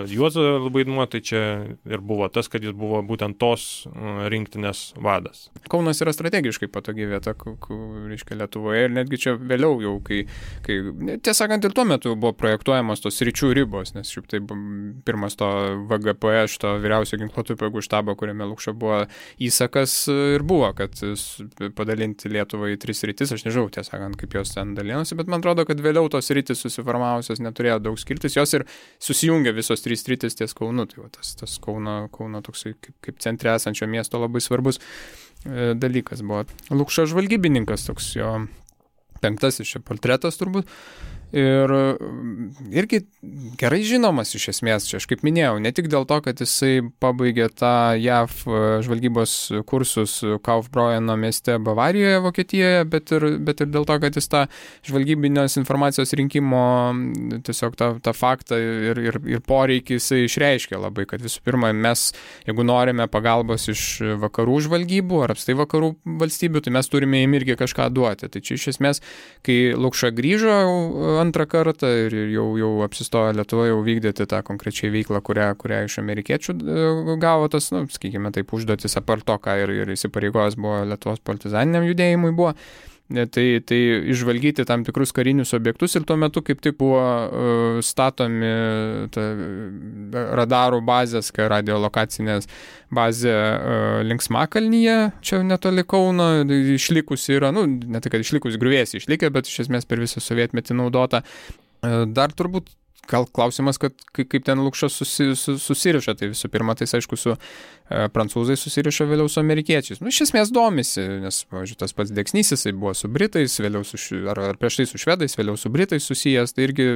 Juozo vaidmuo tai čia ir buvo tas, kad jis buvo būtent tos rinktinės vadas. Kaunas yra strategiškai patogi vieta, reiškia, Lietuvoje, ir netgi čia vėliau jau, kai tiesąkant, ir tuo metu buvo projektuojamos tos sričių ribos, nes šiaip tai pirmas to VGP, šito vyriausio ginkluotųjų pajėgų štabo, kuriame Lukša buvo įsakas, ir buvo, kad padalinti Lietuvą į 3 sritis. Aš nežinau, tiesąkant, kaip jos ten dalinosi, bet man atrodo, kad vėliau tos sritis susiformavusios neturėjo daug skirtis, jos ir susijungia visos 3 sritis ties Kaunu. Tai tas Kauno toksai kaip centre esančio miesto labai svarbus dalykas buvo. Lukša žvalgybininkas, toks jo 5. čia portretas turbūt. Ir irgi gerai žinomas iš esmės, čia aš kaip minėjau, ne tik dėl to, kad jisai pabaigė tą JAV žvalgybos kursus Kaufbräuno mieste Bavarijoje, Vokietijoje, bet ir dėl to, kad jis tą žvalgybinės informacijos rinkimo tiesiog tą faktą ir poreikį jisai išreiškė labai, kad visų pirma, mes, jeigu norime pagalbos iš vakarų žvalgybų ar apstai vakarų valstybių, tai mes turime jiem irgi kažką duoti. Tai čia iš esmės, kai Lukša grįžo antrą kartą ir jau apsistojo Lietuvoje jau vykdyti tą konkrečiai veiklą, kurią iš amerikiečių gavo tas, sakykime taip, užduotis apart to, ką ir įsipareigojęs buvo Lietuvos partizaniniam judėjimui buvo. tai išvalgyti tam tikrus karinius objektus ir tuo metu kaip tik buvo statomi radarų bazės, radiolokacinės bazė Linksmakalnyje, čia netoli Kauno, išlikusi yra, ne tai, kad išlikusi griuvėsiai išlikę, bet iš esmės per visą sovietmetį naudota. Dar turbūt gal klausimas, kad kaip ten Lukša susiriša, tai visų pirma, tai aišku, su prancūzai susiriša, vėliau su amerikiečiais. Iš esmės domisi, nes, pavyzdžiui, tas pats Deksnys, jisai buvo su Britais, vėliau ar prieš tai su Švedais, vėliau su Britais susijęs, tai irgi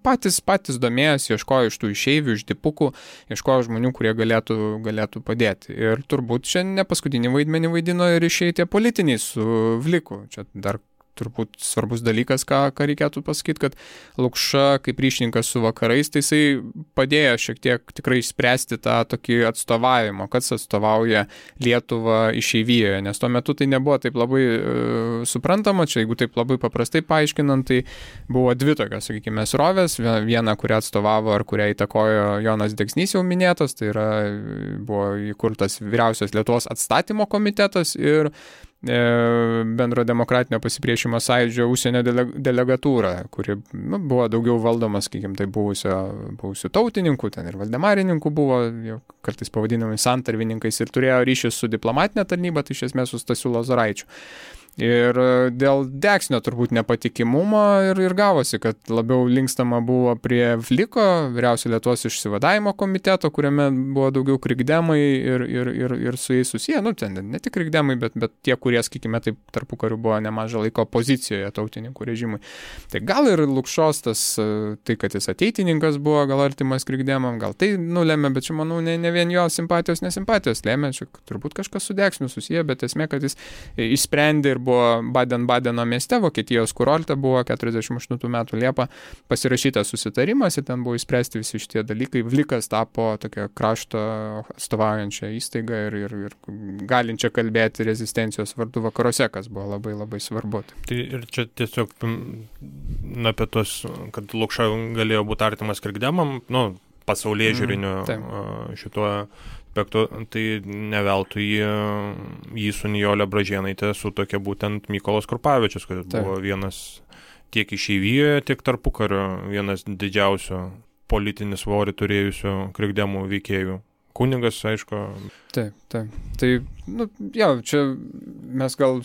patys domėjęs, ieškojo iš tų išeivių, iš dipukų, ieškojo žmonių, kurie galėtų padėti. Ir turbūt čia ne paskutinį vaidmenį vaidino ir išėjai tie politiniai su Vliku. Čia dar turbūt svarbus dalykas, ką reikėtų pasakyti, kad Lukša kaip ryšininkas su vakarais, tai jisai padėjo šiek tiek tikrai išspręsti tą tokį atstovavimą, kas atstovauja Lietuvą išeivijoje, nes tuo metu tai nebuvo taip labai suprantama, čia jeigu taip labai paprastai paaiškinant, tai buvo dvi tokios, sakykime, srovės, viena, kurią atstovavo ar kurią įtakojo Jonas Deksnys jau minėtas, tai yra buvo įkurtas Vyriausios Lietuvos atstatymo komitetas ir Bendro demokratinio pasipriešimo sąjūdžio užsienio delegatūra, kuri buvo daugiau valdoma, sakykime, tai buvusių tautininkų, ten ir valdemarininkų buvo, jau kartais pavadinami santarvininkais ir turėjo ryšius su diplomatinė tarnyba, tai iš esmės su Stasiu Lozoraičiu. Ir dėl Deksnio turbūt nepatikimumo ir gavosi, kad labiau linkstama buvo prie Vliko, Vyriausio Lietuvos išsivadavimo komiteto, kuriame buvo daugiau krikdemai ir su jais susiję, ten ne tik krikdemai, bet tie, kurie, sakykime, taip tarpukariu buvo nemažą laiko opozicijoje tautininkų režimui. Tai gal ir Lukšos tai, kad jis ateitininkas buvo, gal artimas krikdemam, gal tai nulėmė, bet čia, manau, ne vien jo simpatijos, nesimpatijos lėmė, čia turbūt kažkas su Deksniu susiję, bet esmė, kad jis išsprendė ir buvo Baden-Badeno mieste, Vokietijos kurorte buvo 48 metų Liepą pasirašytas susitarimas ir ten buvo įspręsti visi šitie dalykai. Vlikas tapo tokia krašto atstovaujančia įstaiga ir galinčia kalbėti rezistencijos vardu vakaruose, kas buvo labai labai svarbu. Tai ir čia tiesiog apie tos, kad Lukša galėjo būti artimas krikdemam, pasaulyje žiūriniu šituo aspektu, tai neveltui jį su Nijole Bražėnaitė sutuokė būtent Mykolas Krupavičius, kuris buvo vienas tiek išeivijoje, tiek tarpukario vienas didžiausių politinį svorį turėjusių krikdemų veikėjų. Kunigas, aišku. Taip. Tai, čia mes gal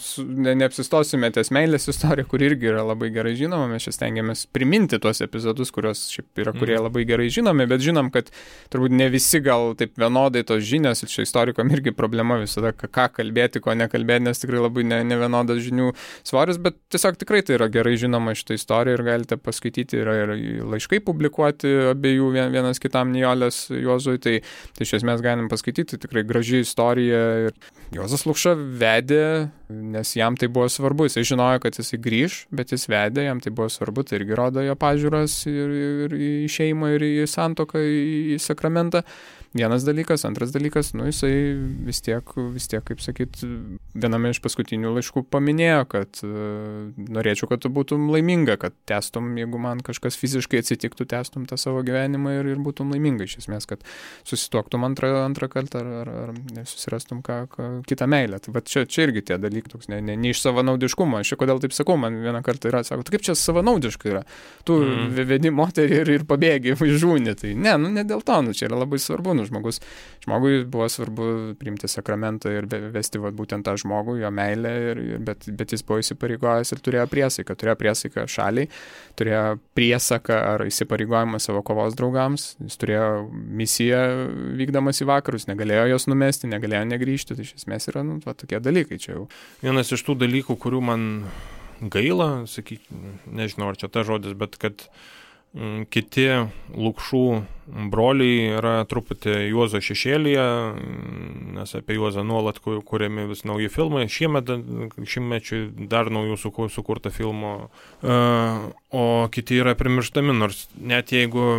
neapsistosime ties meilės istoriją, kuri irgi yra labai gerai žinoma, mes čia stengiamės priminti tuos epizodus, kurie labai gerai žinomi, bet žinom, kad turbūt ne visi gal taip vienodai tos žinios, ir čia istorikam irgi problema visada, ką kalbėti, ko nekalbėti, nes tikrai labai nevienodas žinių svoris, bet tiesiog tikrai tai yra gerai žinoma šitą istoriją ir galite paskaityti, yra ir laiškai publikuoti abiejų vienas kitam Nijolės Juozui, tai iš esmės galim paskaityti, tikrai graži istorija ir Juozas Lukša vedė, nes jam tai buvo svarbu, jisai žinojo, kad jisai grįž, bet jis vedė, jam tai buvo svarbu, tai irgi rodo jo pažiūras ir į šeimą, ir į santuoką, į sakramentą. Vienas dalykas, antras dalykas, jisai vis tiek, kaip sakyt, viename iš paskutinių laiškų paminėjo, kad norėčiau, kad tu būtum laiminga, kad testum, jeigu man kažkas fiziškai atsitiktų, testum tą savo gyvenimą ir būtum laiminga, iš esmės, kad susituoktum antrą kartą ar susirastum kitą meilę. Tai bet čia irgi tie dalykai, toks ne iš savanaudiškumo. Aš kodėl taip sakau, man vieną kartą yra, sako, kaip čia savanaudiškai yra. Tu vedi moterį ir pabėgi, žūni. Tai ne dėl to, čia yra labai svarbu. Žmogui buvo svarbu priimti sakramentą ir vesti būtent tą žmogų, jo meilę, bet jis buvo įsipareigojęs ir turėjo priesaiką šaliai, turėjo priesaką ar įsipareigojimą savo kovos draugams, jis turėjo misiją vykdamas į vakarus, negalėjo jos numesti, negalėjo negrįžti, tai iš esmės yra tokie dalykai čia jau. Vienas iš tų dalykų, kurių man gaila, nežinau ar čia ta žodis, bet kad kiti Lukšų broliai yra truputį Juozo šešėlyje, nes apie Juozą nuolat kuriami vis nauji filmai, šimtmečiui dar naujų sukurta filmų, o kiti yra primirštami, nors net jeigu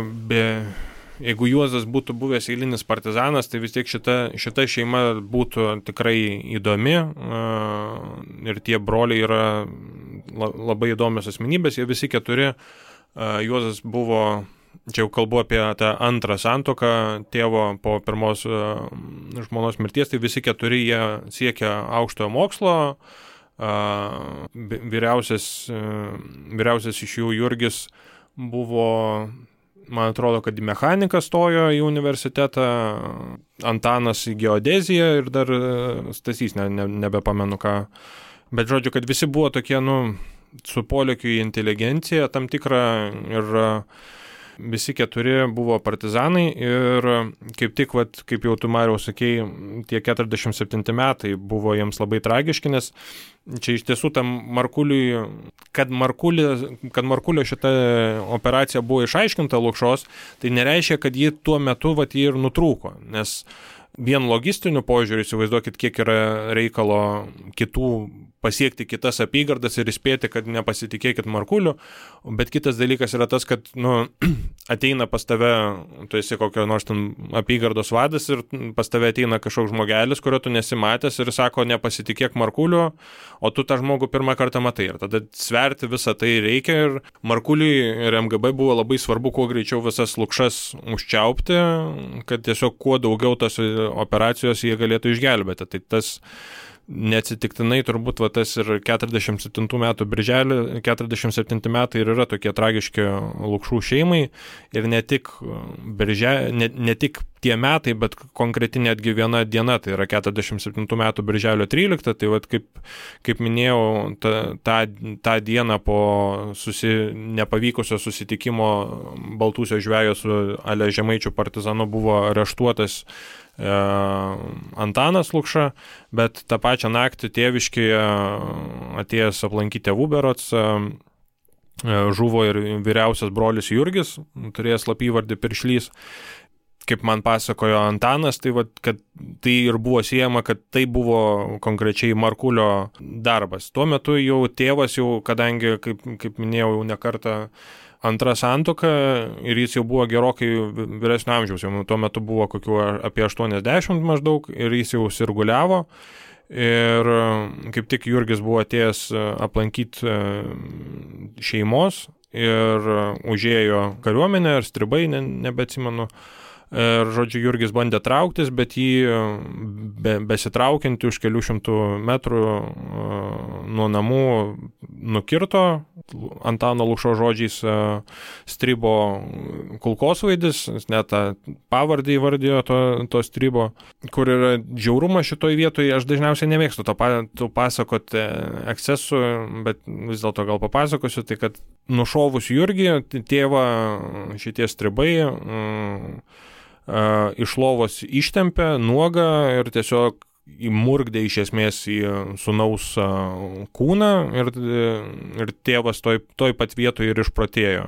Juozas būtų buvęs eilinis partizanas, tai vis tiek šita šeima būtų tikrai įdomi ir tie broliai yra labai įdomios asmenybės, jie visi keturi. Juozas buvo, čia jau kalbu apie tą antrą santuoką tėvo po pirmos žmonos mirties, tai visi keturi jie siekia aukštojo mokslo, vyriausias iš jų Jurgis buvo, man atrodo, kad į mechaniką stojo į universitetą, Antanas į geodeziją ir dar Stasys, nebepamenu ką. Bet žodžiu, kad visi buvo tokie, su polėkiu į inteligenciją tam tikrą ir visi 4 buvo partizanai ir kaip tik, kaip jau tu, Mariau, sakei, tie 47 metai buvo jiems labai tragiški, nes čia iš tiesų tam Markuliui, kad Markulio šita operacija buvo išaiškinta Lukšos, tai nereiškia, kad ji tuo metu ji ir nutrūko, nes vien logistiniu požiūriu įsivaizduokit, kiek yra reikalo kitų pasiekti kitas apygardas ir įspėti, kad nepasitikėkit Markuliu, bet kitas dalykas yra tas, kad ateina pas tave, tu esi kokio nors ten apygardos vadas ir pas tave ateina kažkoks žmogelis, kurio tu nesimatęs ir sako, nepasitikėk Markuliu, o tu tą žmogų pirmą kartą matai ir tada sverti visą tai reikia ir Markuliui ir MGB buvo labai svarbu kuo greičiau visas Lukšas užčiaupti, kad tiesiog kuo daugiau tos operacijos jie galėtų išgelbėti. Tai tas neatsitiktinai turbūt tas ir 47 metų birželį, 47 metai ir yra tokie tragiški Lukšų šeimai ir ne tik tie metai, bet konkreti netgi viena diena, tai yra 47 metų birželio 13, tai kaip minėjau, tą dieną po nepavykusio susitikimo Baltūsio žvejo su Ale Žemaičių partizanu buvo areštuotas Antanas Lukša, bet tą pačią naktį tėviškėje atėjęs aplankyti tėvų berods žuvo ir vyriausias brolis Jurgis, turėjęs slapyvardį Piršlys. Kaip man pasakojo Antanas, tai kad tai ir buvo siejama, kad tai buvo konkrečiai Markulio darbas. Tuo metu jau tėvas, kadangi, kaip minėjau, jau ne kartą antra santuoka ir jis jau buvo gerokai vyresnio amžiaus, jau tuo metu buvo kokių apie 80 maždaug ir jis jau sirguliavo ir kaip tik Jurgis buvo atėjęs aplankyti šeimos ir užėjo kariuomenę ar stribai, nebeatsimenu. Ir, žodžiu, Jurgis bandė trauktis, bet jį besitraukiantį už kelių šimtų metrų nuo namų nukirto, Antano Lukšo žodžiais stribo kulkosvaidis, net tą pavardį įvardijo to stribo, kur yra žiaurumas šitoj vietoje. Aš dažniausiai nemėgstu to pasakoti ekscesų, bet vis dėlto gal papasakosiu, tai kad nušovus Jurgį, tėvą šitie stribai iš lovos ištempė nuogą ir tiesiog įmurgdė iš esmės į sūnaus kūną ir tėvas toj pat vietoje ir išprotėjo,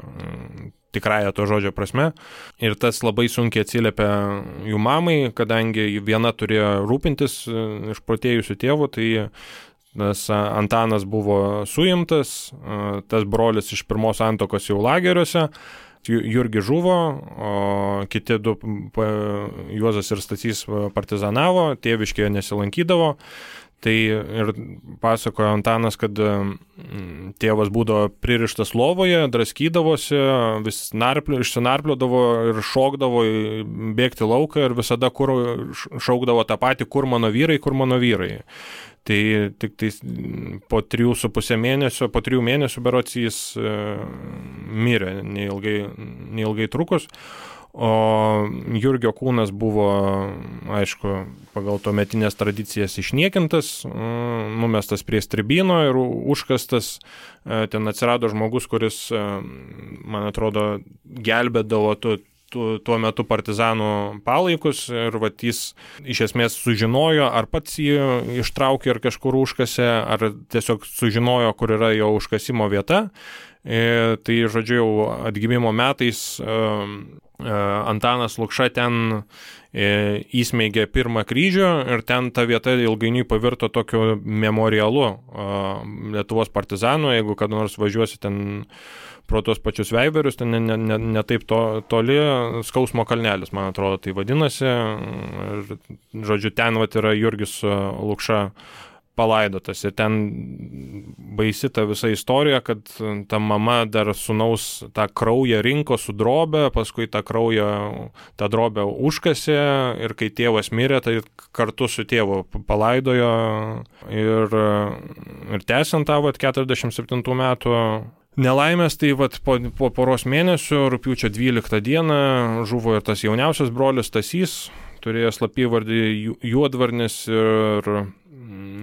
tikrąja to žodžio prasme. Ir tas labai sunkiai atsiliepė jų mamai, kadangi viena turėjo rūpintis išprotėjusiu tėvu, tai tas Antanas buvo suimtas, tas brolis iš pirmos santuokos jau lageriuose, Jurgis žuvo, o kiti 2, Juozas ir Stasys, partizanavo, tėviškėje nesilankydavo. Tai ir pasakojo Antanas, kad tėvas būdavo pririštas lovoje, draskydavosi, vis išsinarpliodavo ir šokdavo bėgti lauką ir visada šaukdavo tą patį, kur mano vyrai. Tai tik tai po 3,5 mėnesio, po 3 mėnesių berods jis mirė, neilgai trukus. O Jurgio kūnas buvo, aišku, pagal tuometinės tradicijas išniekintas, numestas prie stribyno ir užkastas. Ten atsirado žmogus, kuris, man atrodo, gelbėdavo tuo metu partizanų palaikus ir jis iš esmės sužinojo, ar pats jį ištraukė ir kažkur užkasė, ar tiesiog sužinojo, kur yra jo užkasimo vieta. Tai, žodžiu, jau atgimimo metais Antanas Lukša ten įsmeigė pirmą kryžių ir ten ta vieta ilgainiui pavirto tokiu memorialu Lietuvos partizanų. Jeigu kada nors važiuosi ten pro tos pačius Veiverius, ten ne taip toli, Skausmo kalnelis, man atrodo, tai vadinasi. Ir, žodžiu, ten yra Jurgis Lukša palaidotas. Ir ten baisi ta visa istorija, kad ta mama dar sūnaus tą kraują rinko su drobė, paskui tą drobę užkasė ir kai tėvas mirė, tai kartu su tėvu palaidojo ir tęsiant tą 47 metų nelaimės, tai po poros mėnesių, rugpjūčio 12 dieną, žuvo ir tas jauniausias brolis Stasys, turėjo slapyvardį Juodvarnis ir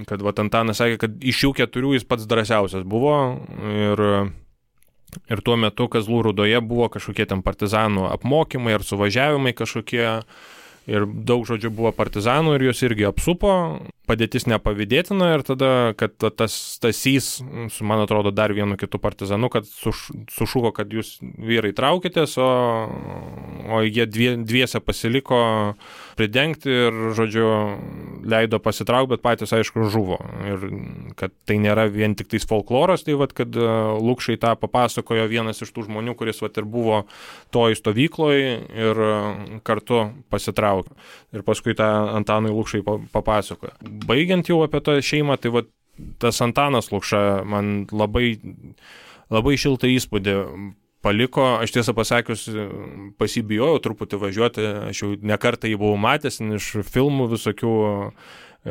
kad Antanas sakė, kad iš jų 4 jis pats drąsiausias buvo ir tuo metu Kazlų Rūdoje buvo kažkokie ten partizanų apmokymai ar suvažiavimai kažkokie ir daug žodžių buvo partizanų ir juos irgi apsupo, padėtis nepavydėtina ir tada, kad tas Stasys, su man atrodo dar vienu kitu partizanu, kad sušuko, kad jūs vyrai traukitės, o jie dviese pasiliko pridengti ir, žodžiu, leido pasitraukti, bet patys, aišku, žuvo. Ir kad tai nėra vien tik tais folkloras, tai kad Lukšai tą papasakojo vienas iš tų žmonių, kuris ir buvo toj stovykloje ir kartu pasitraukė. Ir paskui tą Antanui Lukšai papasakojo. Baigiant jau apie tą šeimą, tai tas Antanas Lukša man labai, labai šiltą įspūdį paliko. Aš tiesą pasakius pasibijojau truputį važiuoti, aš jau nekartą jį buvau matęs iš filmų visokių,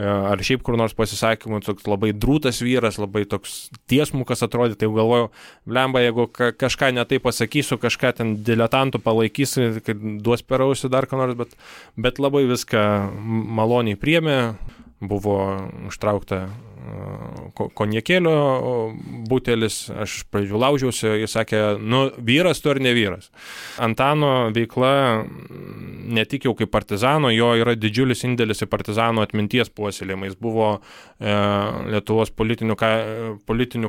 ar šiaip kur nors pasisakymų, toks labai drūtas vyras, labai toks tiesmukas atrodė, tai galvojau, blemba, jeigu kažką netai pasakysiu, kažką ten diletantų palaikysiu, kad duos per ausį dar ką nors, bet labai viską maloniai priėmė. Buvo užtraukta konjakėlio butelis, aš pradžių laužiausi, jis sakė, vyras tu ar ne vyras. Antano veikla ne tik jau kaip partizano, jo yra didžiulis indėlis į partizano atminties puoselėjimą. Jis buvo Lietuvos politinių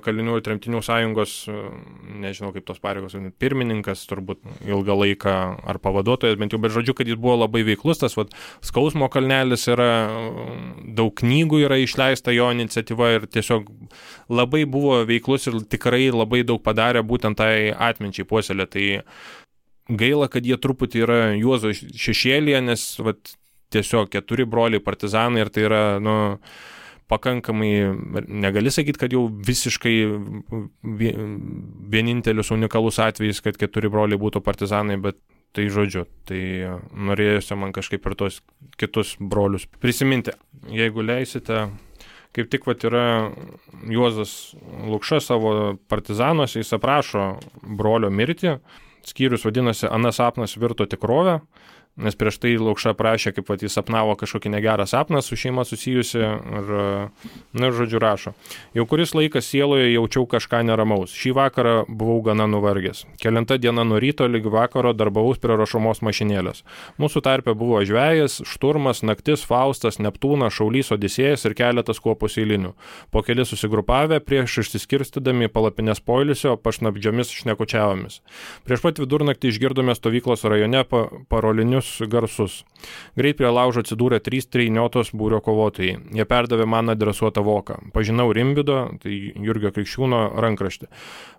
kalinių ir tremtinių sąjungos, nežinau kaip tos pareigos, pirmininkas turbūt ilgą laiką ar pavaduotojas, bent jau, bet žodžiu, kad jis buvo labai veiklus, tas Skausmo kalnelis yra, daug knygų yra išleista jo iniciatyva ir tiesiog labai buvo veiklus ir tikrai labai daug padarė būtent tai atminčiai puoselė. Tai gaila, kad jie truputį yra Juozo šešėlyje, nes tiesiog 4 broliai partizanai ir tai yra, pakankamai, negali sakyti, kad jau visiškai vienintelis unikalus atvejis, kad 4 broliai būtų partizanai, bet tai žodžiu, tai norėjusi man kažkaip ir tos kitus brolius prisiminti. Jeigu leisite, kaip tik yra Juozas Lukša savo partizanuose, jis aprašo brolio mirtį, skyrius vadinasi Anas sapnas virto tikrovę, nes prieš tai Lukša prašė, kaip jis sapnavo kažkokį negerą sapną su šeima susijusi ir žodžiu rašo. Jau kuris laikas sieloje jaučiau kažką neramaus. Šį vakarą buvau gana nuvargęs. Kelinta diena nuo ryto lyg vakaro darbavaus prie rašomos mašinėlės. Mūsų tarpe buvo žvejas, Šturmas, Naktis, Faustas, Neptūnas, Šaulys, Odisėjas ir keletas kuopos eilinių. Po keli susigrupavę prieš išsiskirstydami palapinės poilsio pašnabdžiomis šnekučiavomis. Prieš pat vidurnaktį išgirdome stovyklos rajone parolinius garsus. Greit prie laužo atsidūrė 3 trejniotos būrio kovotojai. Jie perdavė man adresuotą voką. Pažinau Rimvydo, tai Jurgio Krikščiūno rankraštį.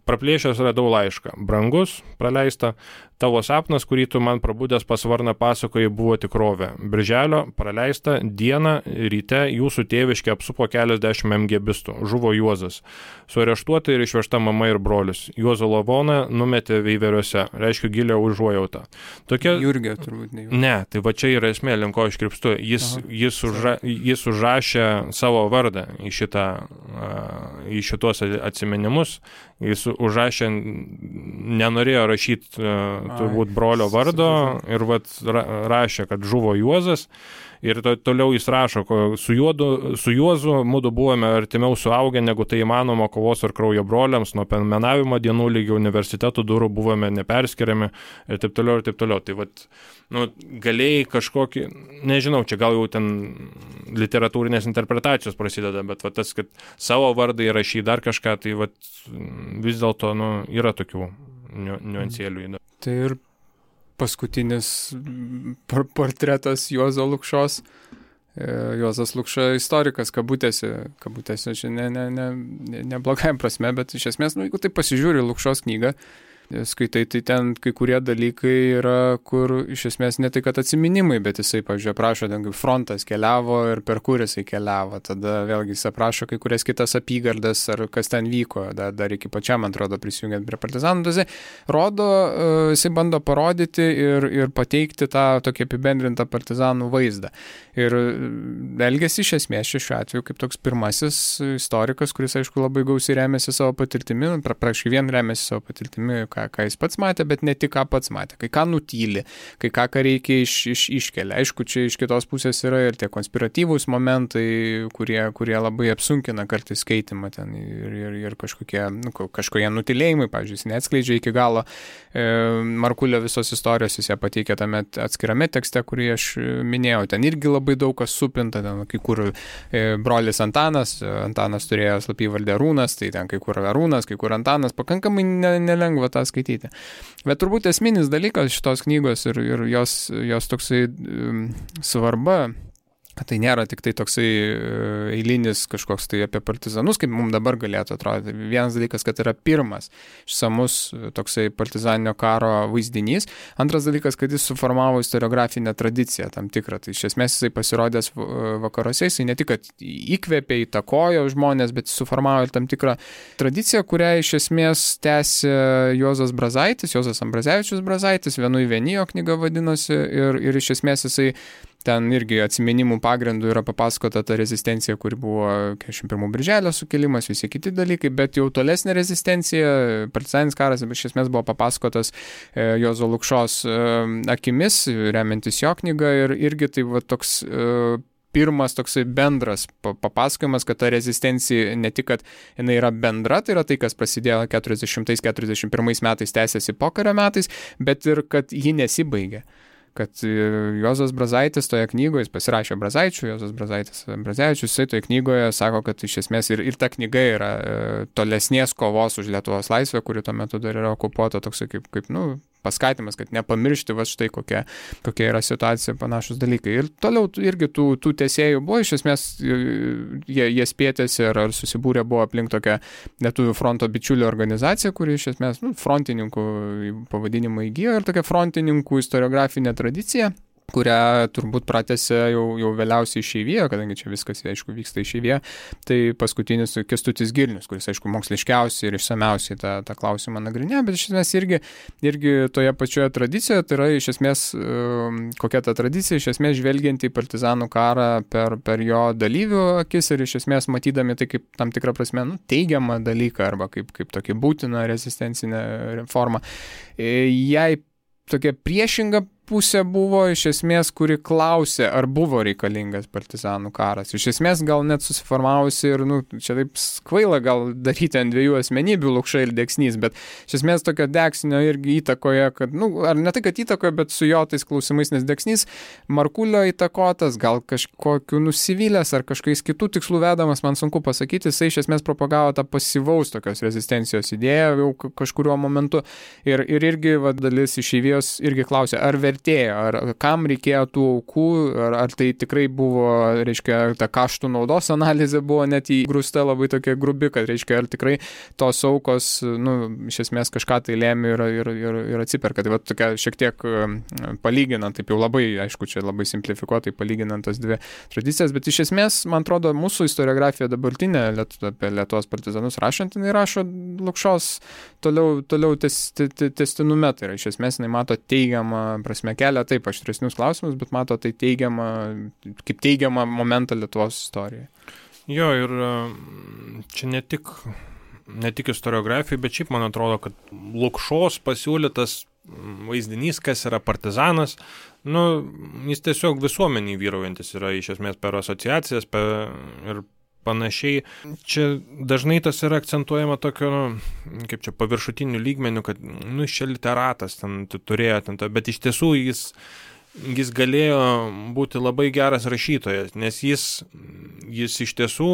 Praplėšęs radau laišką. Brangus, praleista, tavo sapnas, kurį tu man prabudęs pasvarną pasakojai, buvo tikrovė. Birželio, praleista, dieną, ryte jūsų tėviškė apsupo keliasdešimt MGBistų. Žuvo Juozas. Suareštuota ir išvežta mama ir brolis. Juozo lavoną numetė Veiveriuose. Reiškia gilią užuojautą. Tokia... Jurgio turbūt ne. Ne, tai čia yra esmė, link ko aš krypstu. Jis užrašė savo vardą į šitos atsiminimus. Jis užrašė, nenorėjo rašyti turbūt brolio vardo ir rašė, kad žuvo Juozas. Ir toliau jis rašo, su Juozu mudu buvome artimiau suaugę, negu tai įmanoma kovos ir kraujo broliams, nuo penmenavimo dienų lygio universitetų durų buvome neperskiriami ir taip toliau ir taip toliau. Tai galėjai kažkokį, nežinau, čia gal jau ten literatūrinės interpretacijos prasideda, bet tas, kad savo vardą įrašy dar kažką, tai vis dėlto yra tokių niuansėlių. Tai ir paskutinis portretas Juozo Lukšos. Juozas Lukša istorikas, kabutėse, čia ne blogajam prasme, bet iš esmės, jeigu tai pasižiūri Lukšos knygą, skaitai, tai ten kai kurie dalykai yra, kur iš esmės ne tai, kad atsiminimai, bet jisai, pavyzdžiui, aprašo, ten kaip frontas keliavo ir per kur jisai keliavo. Tada vėlgi jis aprašo kai kurias kitas apygardas ar kas ten vyko, dar iki pačiam, man atrodo, prisijungiant prie partizanų. Tai rodo, jisai bando parodyti ir pateikti tą tokį apibendrintą partizanų vaizdą. Ir elgėsi iš esmės šiuo atveju kaip toks pirmasis istorikas, kuris, aišku, labai gausiai remiasi savo patirtimi, praškai vien remiasi savo patirtimi, ką jis pats matė, bet ne tik ką pats matė, kai ką nutyli, kai ką reikia iškelia. Aišku, čia iš kitos pusės yra ir tie konspiratyvūs momentai, kurie labai apsunkina kartais skaitimą ten ir kažkokie nutylėjimai, pavyzdžiui, jis neatskleidžia iki galo Markulio visos istorijos, jis ją pateikė tame atskirame tekste, kurį aš minėjau. Ten irgi labai daug kas supinta, ten kai kur brolis Antanas turėjo slapyvardę Arūnas, tai ten kai kur Arūnas, kai kur Antanas, pakankamai nelengva tą skaityti. Bet turbūt esminis dalykas šitos knygos ir jos toksai svarba, kad tai nėra tik tai toksai eilinis kažkoks tai apie partizanus, kaip mums dabar galėtų atrodyti. Vienas dalykas, kad yra pirmas išsamus toksai partizaninio karo vaizdinys. Antras dalykas, kad jis suformavo istoriografinę tradiciją tam tikrą. Tai iš esmės jisai pasirodęs vakaruose, jisai ne tik, kad įkvėpė, įtakojo žmonės, bet suformavo ir tam tikrą tradiciją, kurią iš esmės tęsė Juozas Ambrazevičius Brazaitis, Vienui vienijo knyga vadinosi, ir iš esmės jisai ten irgi atsiminimų pagrindų yra papasakota ta rezistencija, kuri buvo 41 birželio sukilimas, visi kiti dalykai, bet jau tolesnė rezistencija, partizaninis karas, iš esmės buvo papasakotas Juozo Lukšos akimis, remiantis jo knygą, ir irgi tai va toks pirmas toksai bendras papasakojimas, kad ta rezistencija ne tik, kad jinai yra bendra, tai yra tai, kas prasidėjo 40-41 metais, tęsiasi pokario metais, bet ir kad ji nesibaigė. Kad Juozas Brazaitis toje knygoje, jis pasirašė Brazaičių, Juozas Brazevičius, jisai toje knygoje sako, kad iš esmės ir ta knyga yra tolesnės kovos už Lietuvos laisvę, kuri tuo metu dar yra okupuota, toksai kaip paskatimas, kad nepamiršti va štai kokia yra situacija, panašus dalykai. Ir toliau irgi tų tęsėjų buvo, iš esmės jie spėtėsi ar susibūrė buvo aplink tokią Lietuvių fronto bičiulių organizaciją, kuri iš esmės frontininkų pavadinimą įgijo, ir tokia frontininkų istoriografinė tradicija, kurią turbūt pratęsė jau vėliausiai išeivijoje, kadangi čia viskas, aišku, vyksta išeivijoje, tai paskutinis Kęstutis Girnius, kuris, aišku, moksliškiausiai ir išsamiausiai tą klausimą nagrinėjo, bet iš esmės irgi toje pačioje tradicijoje, tai yra iš esmės, kokia ta tradicija, iš esmės žvelgiant į partizanų karą per jo dalyvių akis ir iš esmės matydami tai kaip tam tikrą prasme teigiamą dalyką arba kaip tokį būtiną rezistencinę formą. Jai tokia priešinga pusė buvo iš esmės, kuri klausė, ar buvo reikalingas partizanų karas. Iš esmės gal net susiformavusi ir, čia taip kvaila gal daryti ant dviejų asmenybių, Lukša ir Deksnys, bet iš esmės tokio Deksnio irgi įtakoje, kad, ar ne tai, kad įtakoje, bet su jo tais klausimais, nes Deksnys Markulio įtakotas, gal kažkokiu nusivylęs ar kažkokiais kitų tikslų vedamas, man sunku pasakyti, jisai iš esmės propagavo tą pasyvaus tokios rezistencijos idėją jau kažkuriuo momentu ir irgi dalis išeivijos irgi klausė, ar vertėjo, ar kam reikėjo tų aukų, ar tai tikrai buvo, reiškia, ta kaštų naudos analizė buvo net įgrūsta labai tokia grubi, kad, reiškia, ar tikrai tos aukos, iš esmės kažką tai lėmė ir atsiperka. Tai va tokia šiek tiek palyginant, taip jau labai, aišku, čia labai simplifikuotai palyginant tas dvi tradicijas, bet iš esmės, man atrodo, mūsų istoriografija dabartinė apie Lietuvos partizanus rašant, jinai rašo Lukšos toliau tęstinume, tai yra iš esmės jinai mato teigiamą prasme kelia taip aštresnius klausimus, bet mato tai kaip teigiamą momentą Lietuvos istorijoje. Jo, ir čia ne tik istoriografija, bet šiaip man atrodo, kad Lukšos pasiūlytas vaizdinys, kas yra partizanas, jis tiesiog visuomeniai vyraujantis yra iš esmės per asociacijas ir panašiai. Čia dažnai tas yra akcentuojama tokio, kaip čia paviršutinių lygmenių, kad, čia literatas ten turėjo, bet iš tiesų jis galėjo būti labai geras rašytojas, nes jis iš tiesų,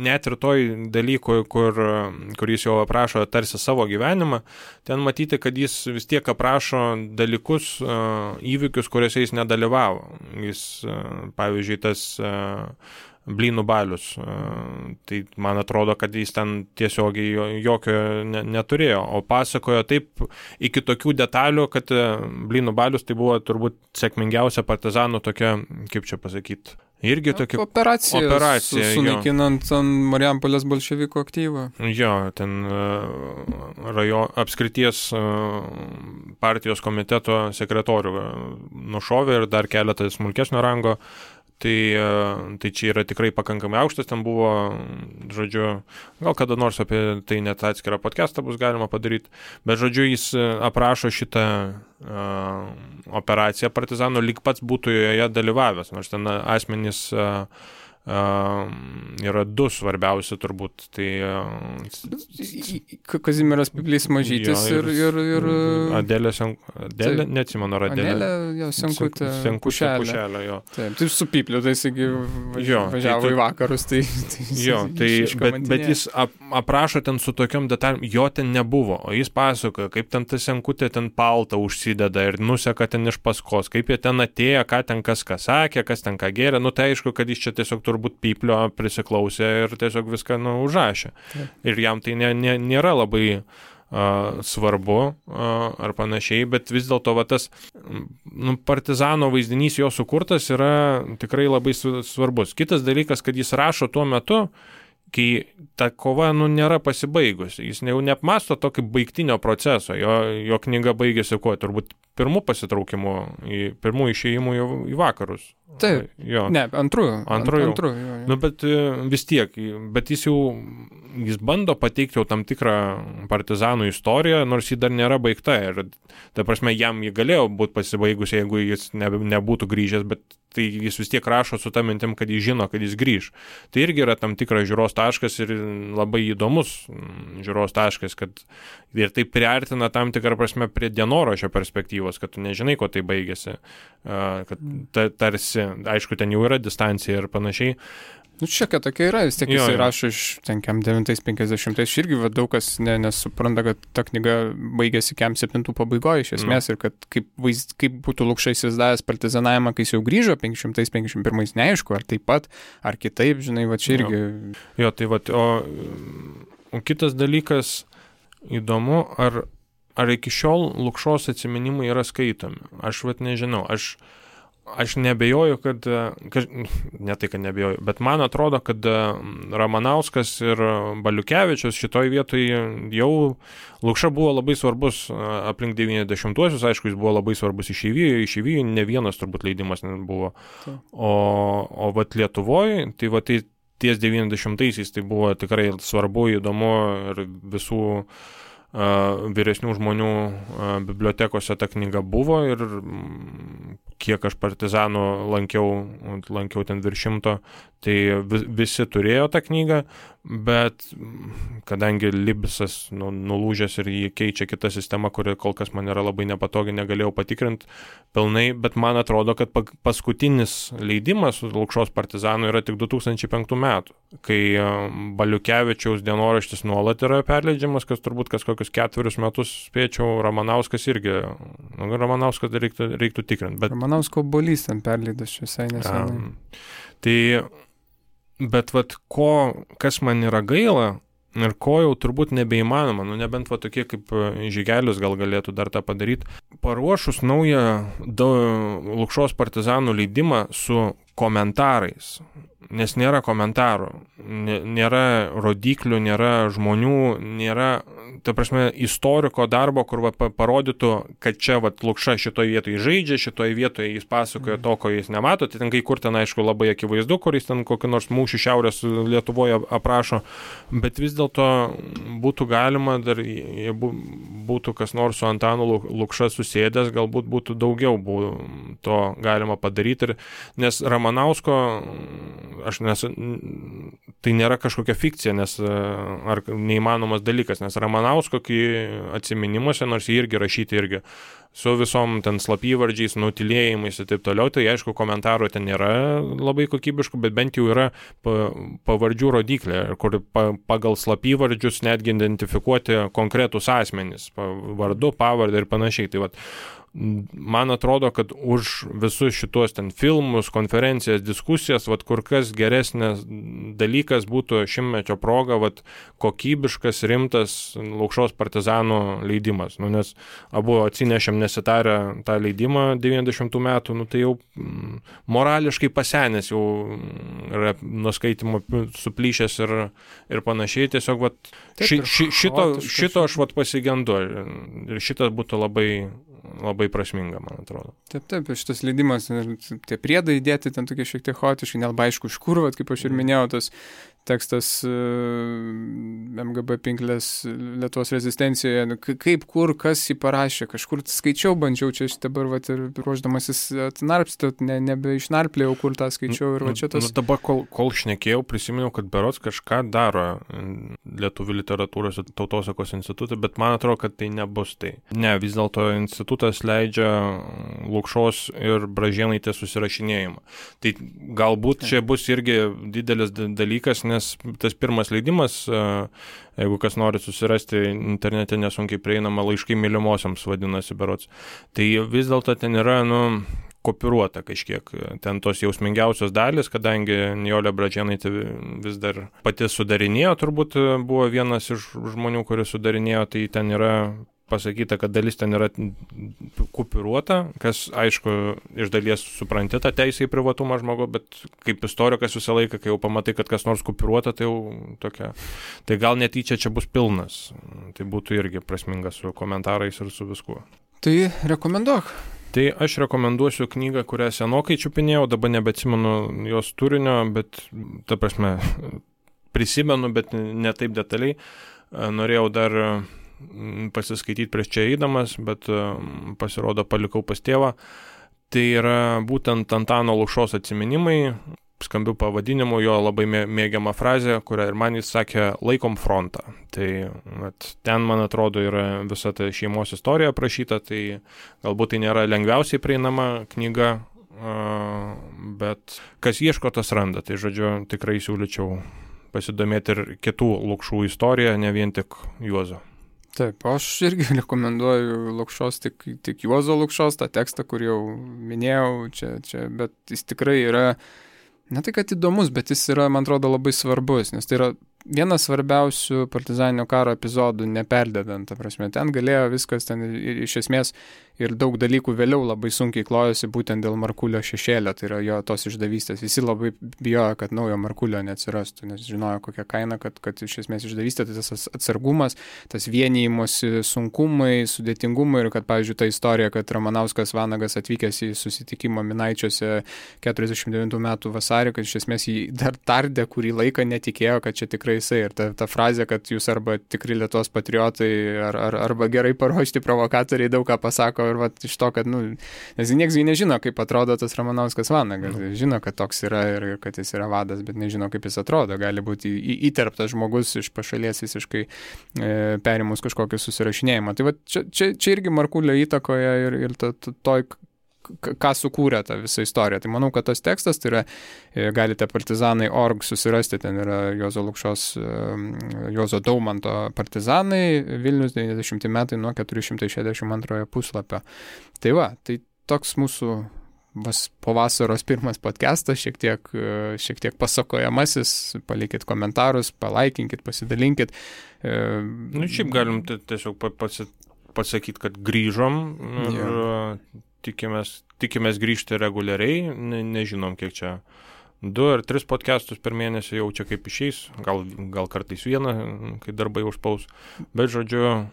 net ir toj dalykui, kur jis jau aprašo tarsi savo gyvenimą, ten matyti, kad jis vis tiek aprašo dalykus, įvykius, kuriuose jis nedalyvavo. Jis, pavyzdžiui, tas Blynų balius. Tai man atrodo, kad jis ten tiesiogiai jokio neturėjo, o pasakojo taip iki tokių detalių, kad Blynų balius tai buvo turbūt sėkmingiausia partizanų tokia, kaip čia pasakyti, irgi tokia operacija sunaikinant Marijampolės bolševikų aktyvą. Jo, ten apskrities partijos komiteto sekretorių nušovė ir dar keletą smulkesnio rango. Tai čia yra tikrai pakankamai aukštas, ten buvo, žodžiu, gal kada nors apie tai net atskirą podcastą bus galima padaryti, bet žodžiu, jis aprašo šitą operaciją partizanų, lyg pats būtų joje dalyvavęs, nors ten asmenys yra du svarbiausi turbūt. Tai Kazimieras Piplys Mažytis ir Adelė, neatsimenu, ar Adelė Senkutė Pušelė. Jo. Taip, tai su Pipliu, tai jisgi važiavo į vakarus. Bet jis aprašo ten su tokiom detalėm, jo ten nebuvo, o jis pasakoja, kaip ten ta Senkutė ten paltą užsideda ir nuseka ten iš paskos, kaip jie ten atėjo, ką ten kas ką sakė, kas ten ką gėrė, tai aišku, kad jis čia tiesiog turbūt Piplio prisiklausė ir tiesiog viską užrašė. Ir jam tai nėra labai svarbu ar panašiai, bet vis dėlto tas partizano vaizdinys jo sukurtas yra tikrai labai svarbus. Kitas dalykas, kad jis rašo tuo metu, kai ta kova nėra pasibaigusi. Jis jau neapmasto to kaip baigtinio proceso. Jo knyga baigėsi turbūt pirmų pasitraukimų, pirmų išėjimų į vakarus. Taip, antrų. Bet vis tiek, bet jis bando pateikti jau tam tikrą partizanų istoriją, nors ji dar nėra baigta. Ir, ta prasme, jam ji galėjo būti pasibaigusi, jeigu jis nebūtų grįžęs, bet tai jis vis tiek rašo su ta mintim, kad jis žino, kad jis grįž. Tai irgi yra tam tikras žiūros taškas ir labai įdomus žiūros taškas, kad ir tai priartina tam tikrą prasme prie dienoraščio perspektyvos, kad tu nežinai, ko tai baigėsi, kad tarsi, aišku, ten jau yra distancija ir panašiai. Šiokia tokia yra, vis tiek jisai rašo iš 950, irgi daug kas nesupranta, kad ta knyga baigėsi 7 pabaigoje iš esmės ir kad kaip būtų Lukša įsivaizdavęs partizanavimą, kai jis jau grįžo 551, neaišku, ar taip pat, ar kitaip, žinai, čia irgi. Jo, tai o kitas dalykas įdomu, ar iki šiol Lukšos atsiminimai yra skaitomi. Aš nežinau, aš nebejoju, kad ne tai, kad nebejoju, bet man atrodo, kad Ramanauskas ir Baliukevičius šitoj vietoje jau Lukša buvo labai svarbus aplink 90-uosius, aišku, jis buvo labai svarbus išeivijai, ne vienas turbūt leidimas buvo. O Lietuvoje, tai ties 90-aisiais tai buvo tikrai svarbu, įdomu ir visų vyresnių žmonių bibliotekose ta knyga buvo ir kiek aš partizanų lankiau ten virš 100, tai visi turėjo tą knygą, bet kadangi Libsas nulūžęs ir jį keičia kita sistema, kuri kol kas man yra labai nepatogi, negalėjau patikrinti pilnai, bet man atrodo, kad paskutinis leidimas Lukšos partizanų yra tik 2005 metų, kai Baliukevičiaus dienoraštis nuolat yra perleidžiamas, kas turbūt kokius 4 metus spėčiau, Ramanauskas irgi, Ramanauskas reiktų tikrinti. Bet Ramanausko obuolys ten perleidas visai nesenai. Bet kas man yra gaila ir ko jau turbūt nebeįmanoma, nebent tokie kaip Žygelis gal galėtų dar tą padaryti, paruošus naują Lukšos partizanų leidimą su komentarais, nes nėra komentarų, nėra rodiklių, nėra žmonių, nėra, ta prasme, istoriko darbo, kur parodytų, kad čia Lukša šitoje vietoje žaidžia, šitoje vietoje jis pasakoja to, ko jis nemato, tai ten kai kur ten, aišku, labai akivaizdu, kur jis ten kokį nors mūšį Šiaurės Lietuvoje aprašo, bet vis dėlto būtų galima, dar būtų kas nors su Antanu Lukša susėdęs, galbūt būtų daugiau to galima padaryti, nes Ramanausko tai nėra kažkokia fikcija, ar neįmanomas dalykas, nes Ramanausko atsiminimuose, nors jie irgi rašyti su visom ten slapyvardžiais, nutilėjimais ir taip toliau, tai aišku, komentarų ten nėra labai kokybiškų, bet bent jau yra pavardžių rodiklė, kur pagal slapyvardžius netgi identifikuoti konkretus asmenys, vardu, pavardę ir panašiai. Tai man atrodo, kad už visus šitos ten filmus, konferencijas, diskusijas, kur kas geresnis dalykas būtų šimtmečio proga, kokybiškas, rimtas Lukšos partizanų leidimas. Nes abu atsinešėm nesitarę tą leidimą 90 metų, tai jau morališkai pasenęs, jau yra nuskaitimo suplyšęs ir panašiai. Tiesiog šito aš pasigendu ir šitas būtų labai prasminga, man atrodo. Taip, šitas leidimas, tie priedai įdėti ten tokie šiek tiek chaotiškai, nelabai aišku iš kur, kaip aš ir minėjau, tas tekstas MGB Pinklės Lietuvos rezistencijoje, kaip, kur, kas jį parašė, kažkur skaičiau, bandžiau čia dabar ir ruoždamasis atnarpstot, nebeišnarplėjau, kur tą skaičiau ir čia tas... Dabar, kol šnekėjau, prisiminiau, kad berods kažką daro Lietuvių literatūros ir tautosakos institutą, bet man atrodo, kad tai nebus tai. Ne, vis dėlto institutas leidžia Lukšos ir Bražėnaitės susirašinėjimą. Tai galbūt čia bus irgi didelis dalykas, nes tas pirmas leidimas, jeigu kas nori susirasti internete nesunkiai prieinama, laiškai mylimosiams vadinasi berods, tai vis dėlto ten yra, kopiruota kažkiek. Ten tos jausmingiausios dalis, kadangi Nijolė Bražėnaitė vis dar pati sudarinėjo, turbūt buvo vienas iš žmonių, kuris sudarinėjo, tai ten yra pasakyta, kad dalis ten yra kupiruota, kas, aišku, iš dalies supranti tą teisę į privatumą žmogaus, bet kaip istorikas visą laiką, kai jau pamatai, kad kas nors kupiruota, tai jau tokia. Tai gal netyčia čia bus pilnas. Tai būtų irgi prasminga su komentarais ir su viskuo. Tai rekomenduok. Tai aš rekomenduosiu knygą, kurią senokai čiupinėjau, dabar nebeatsimenu jos turinio, bet, ta prasme, prisimenu, bet ne taip detaliai. Norėjau dar pasiskaityti prieš čia eidamas, bet pasirodo palikau pas tėvą. Tai yra būtent Antano Lukšos atsiminimai, skambių pavadinimų, jo labai mėgiama frazė, kurią ir man jis sakė, laikom frontą. Tai ten, man atrodo, yra visa ta šeimos istorija aprašyta, tai galbūt tai nėra lengviausiai prieinama knyga, bet kas ieško, tas randa. Tai žodžiu, tikrai siūlyčiau pasidomėti ir kitų Lukšų istoriją, ne vien tik Juozo. Taip, aš irgi rekomenduoju Lukšos, tik Juozo Lukšos, tą tekstą, kur jau minėjau, čia, bet jis tikrai yra, ne tai kad įdomus, bet jis yra, man atrodo, labai svarbus, nes tai yra vienas svarbiausių partizaninio karo epizodų, neperdedant, ta prasme, ten galėjo viskas, ten iš esmės ir daug dalykų vėliau labai sunkiai klojosi būtent dėl Markulio šešėlio, tai yra jo tos išdavystės. Visi labai bijojo, kad naujo Markulio neatsirastų, nes žinojo kokią kainą, kad iš esmės išdavystė, tai tas atsargumas, tas vienijimosi sunkumai, sudėtingumai ir kad, pavyzdžiui, ta istorija, kad Ramanauskas Vanagas atvykęs į susitikimą Minaičiuose 49 metų vasarį, kad iš esmės jį dar tardė kurį laiką, netikėjo, kad čia tikrai jisai. Ir ta frazė, kad jūs arba tikri Lietuvos patriotai, arba gerai paruošti provokatoriai daug ką pasako ir iš to, kad, nes nieks nežino, kaip atrodo tas Ramanauskas Vanagas. Žino, kad toks yra ir kad jis yra vadas, bet nežino, kaip jis atrodo. Gali būti įterptas žmogus iš pašalies visiškai perimus kažkokį susirašinėjimą. Tai čia irgi Markulio įtakoje ir toj ką sukūrė tą visą istoriją. Tai manau, kad tas tekstas, tai yra, galite partizanai.org susirasti, ten yra Juozo Lukšos, Juozo Daumanto partizanai, Vilnius 90 metai nuo 462 puslapio. Tai tai toks mūsų po vasaros pirmas podcastas, šiek tiek pasakojamasis, palikit komentarus, palaikinkit, pasidalinkit. Šiaip galim tiesiog pasakyti, kad grįžom ir tikimės grįžti reguliariai, nežinom kiek čia 2 ar 3 podcastus per mėnesį jau čia kaip išeis, gal kartais vieną, kai darbai užspaus, bet žodžiu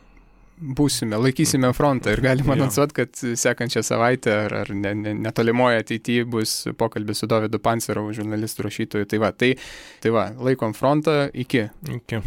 būsime, laikysime frontą ir galima anonsuoti, kad sekančią savaitę ar netolimoje ateityje bus pokalbis su Dovydu Pancerovu, žurnalistų rašytoju. Tai va, laikom frontą, iki.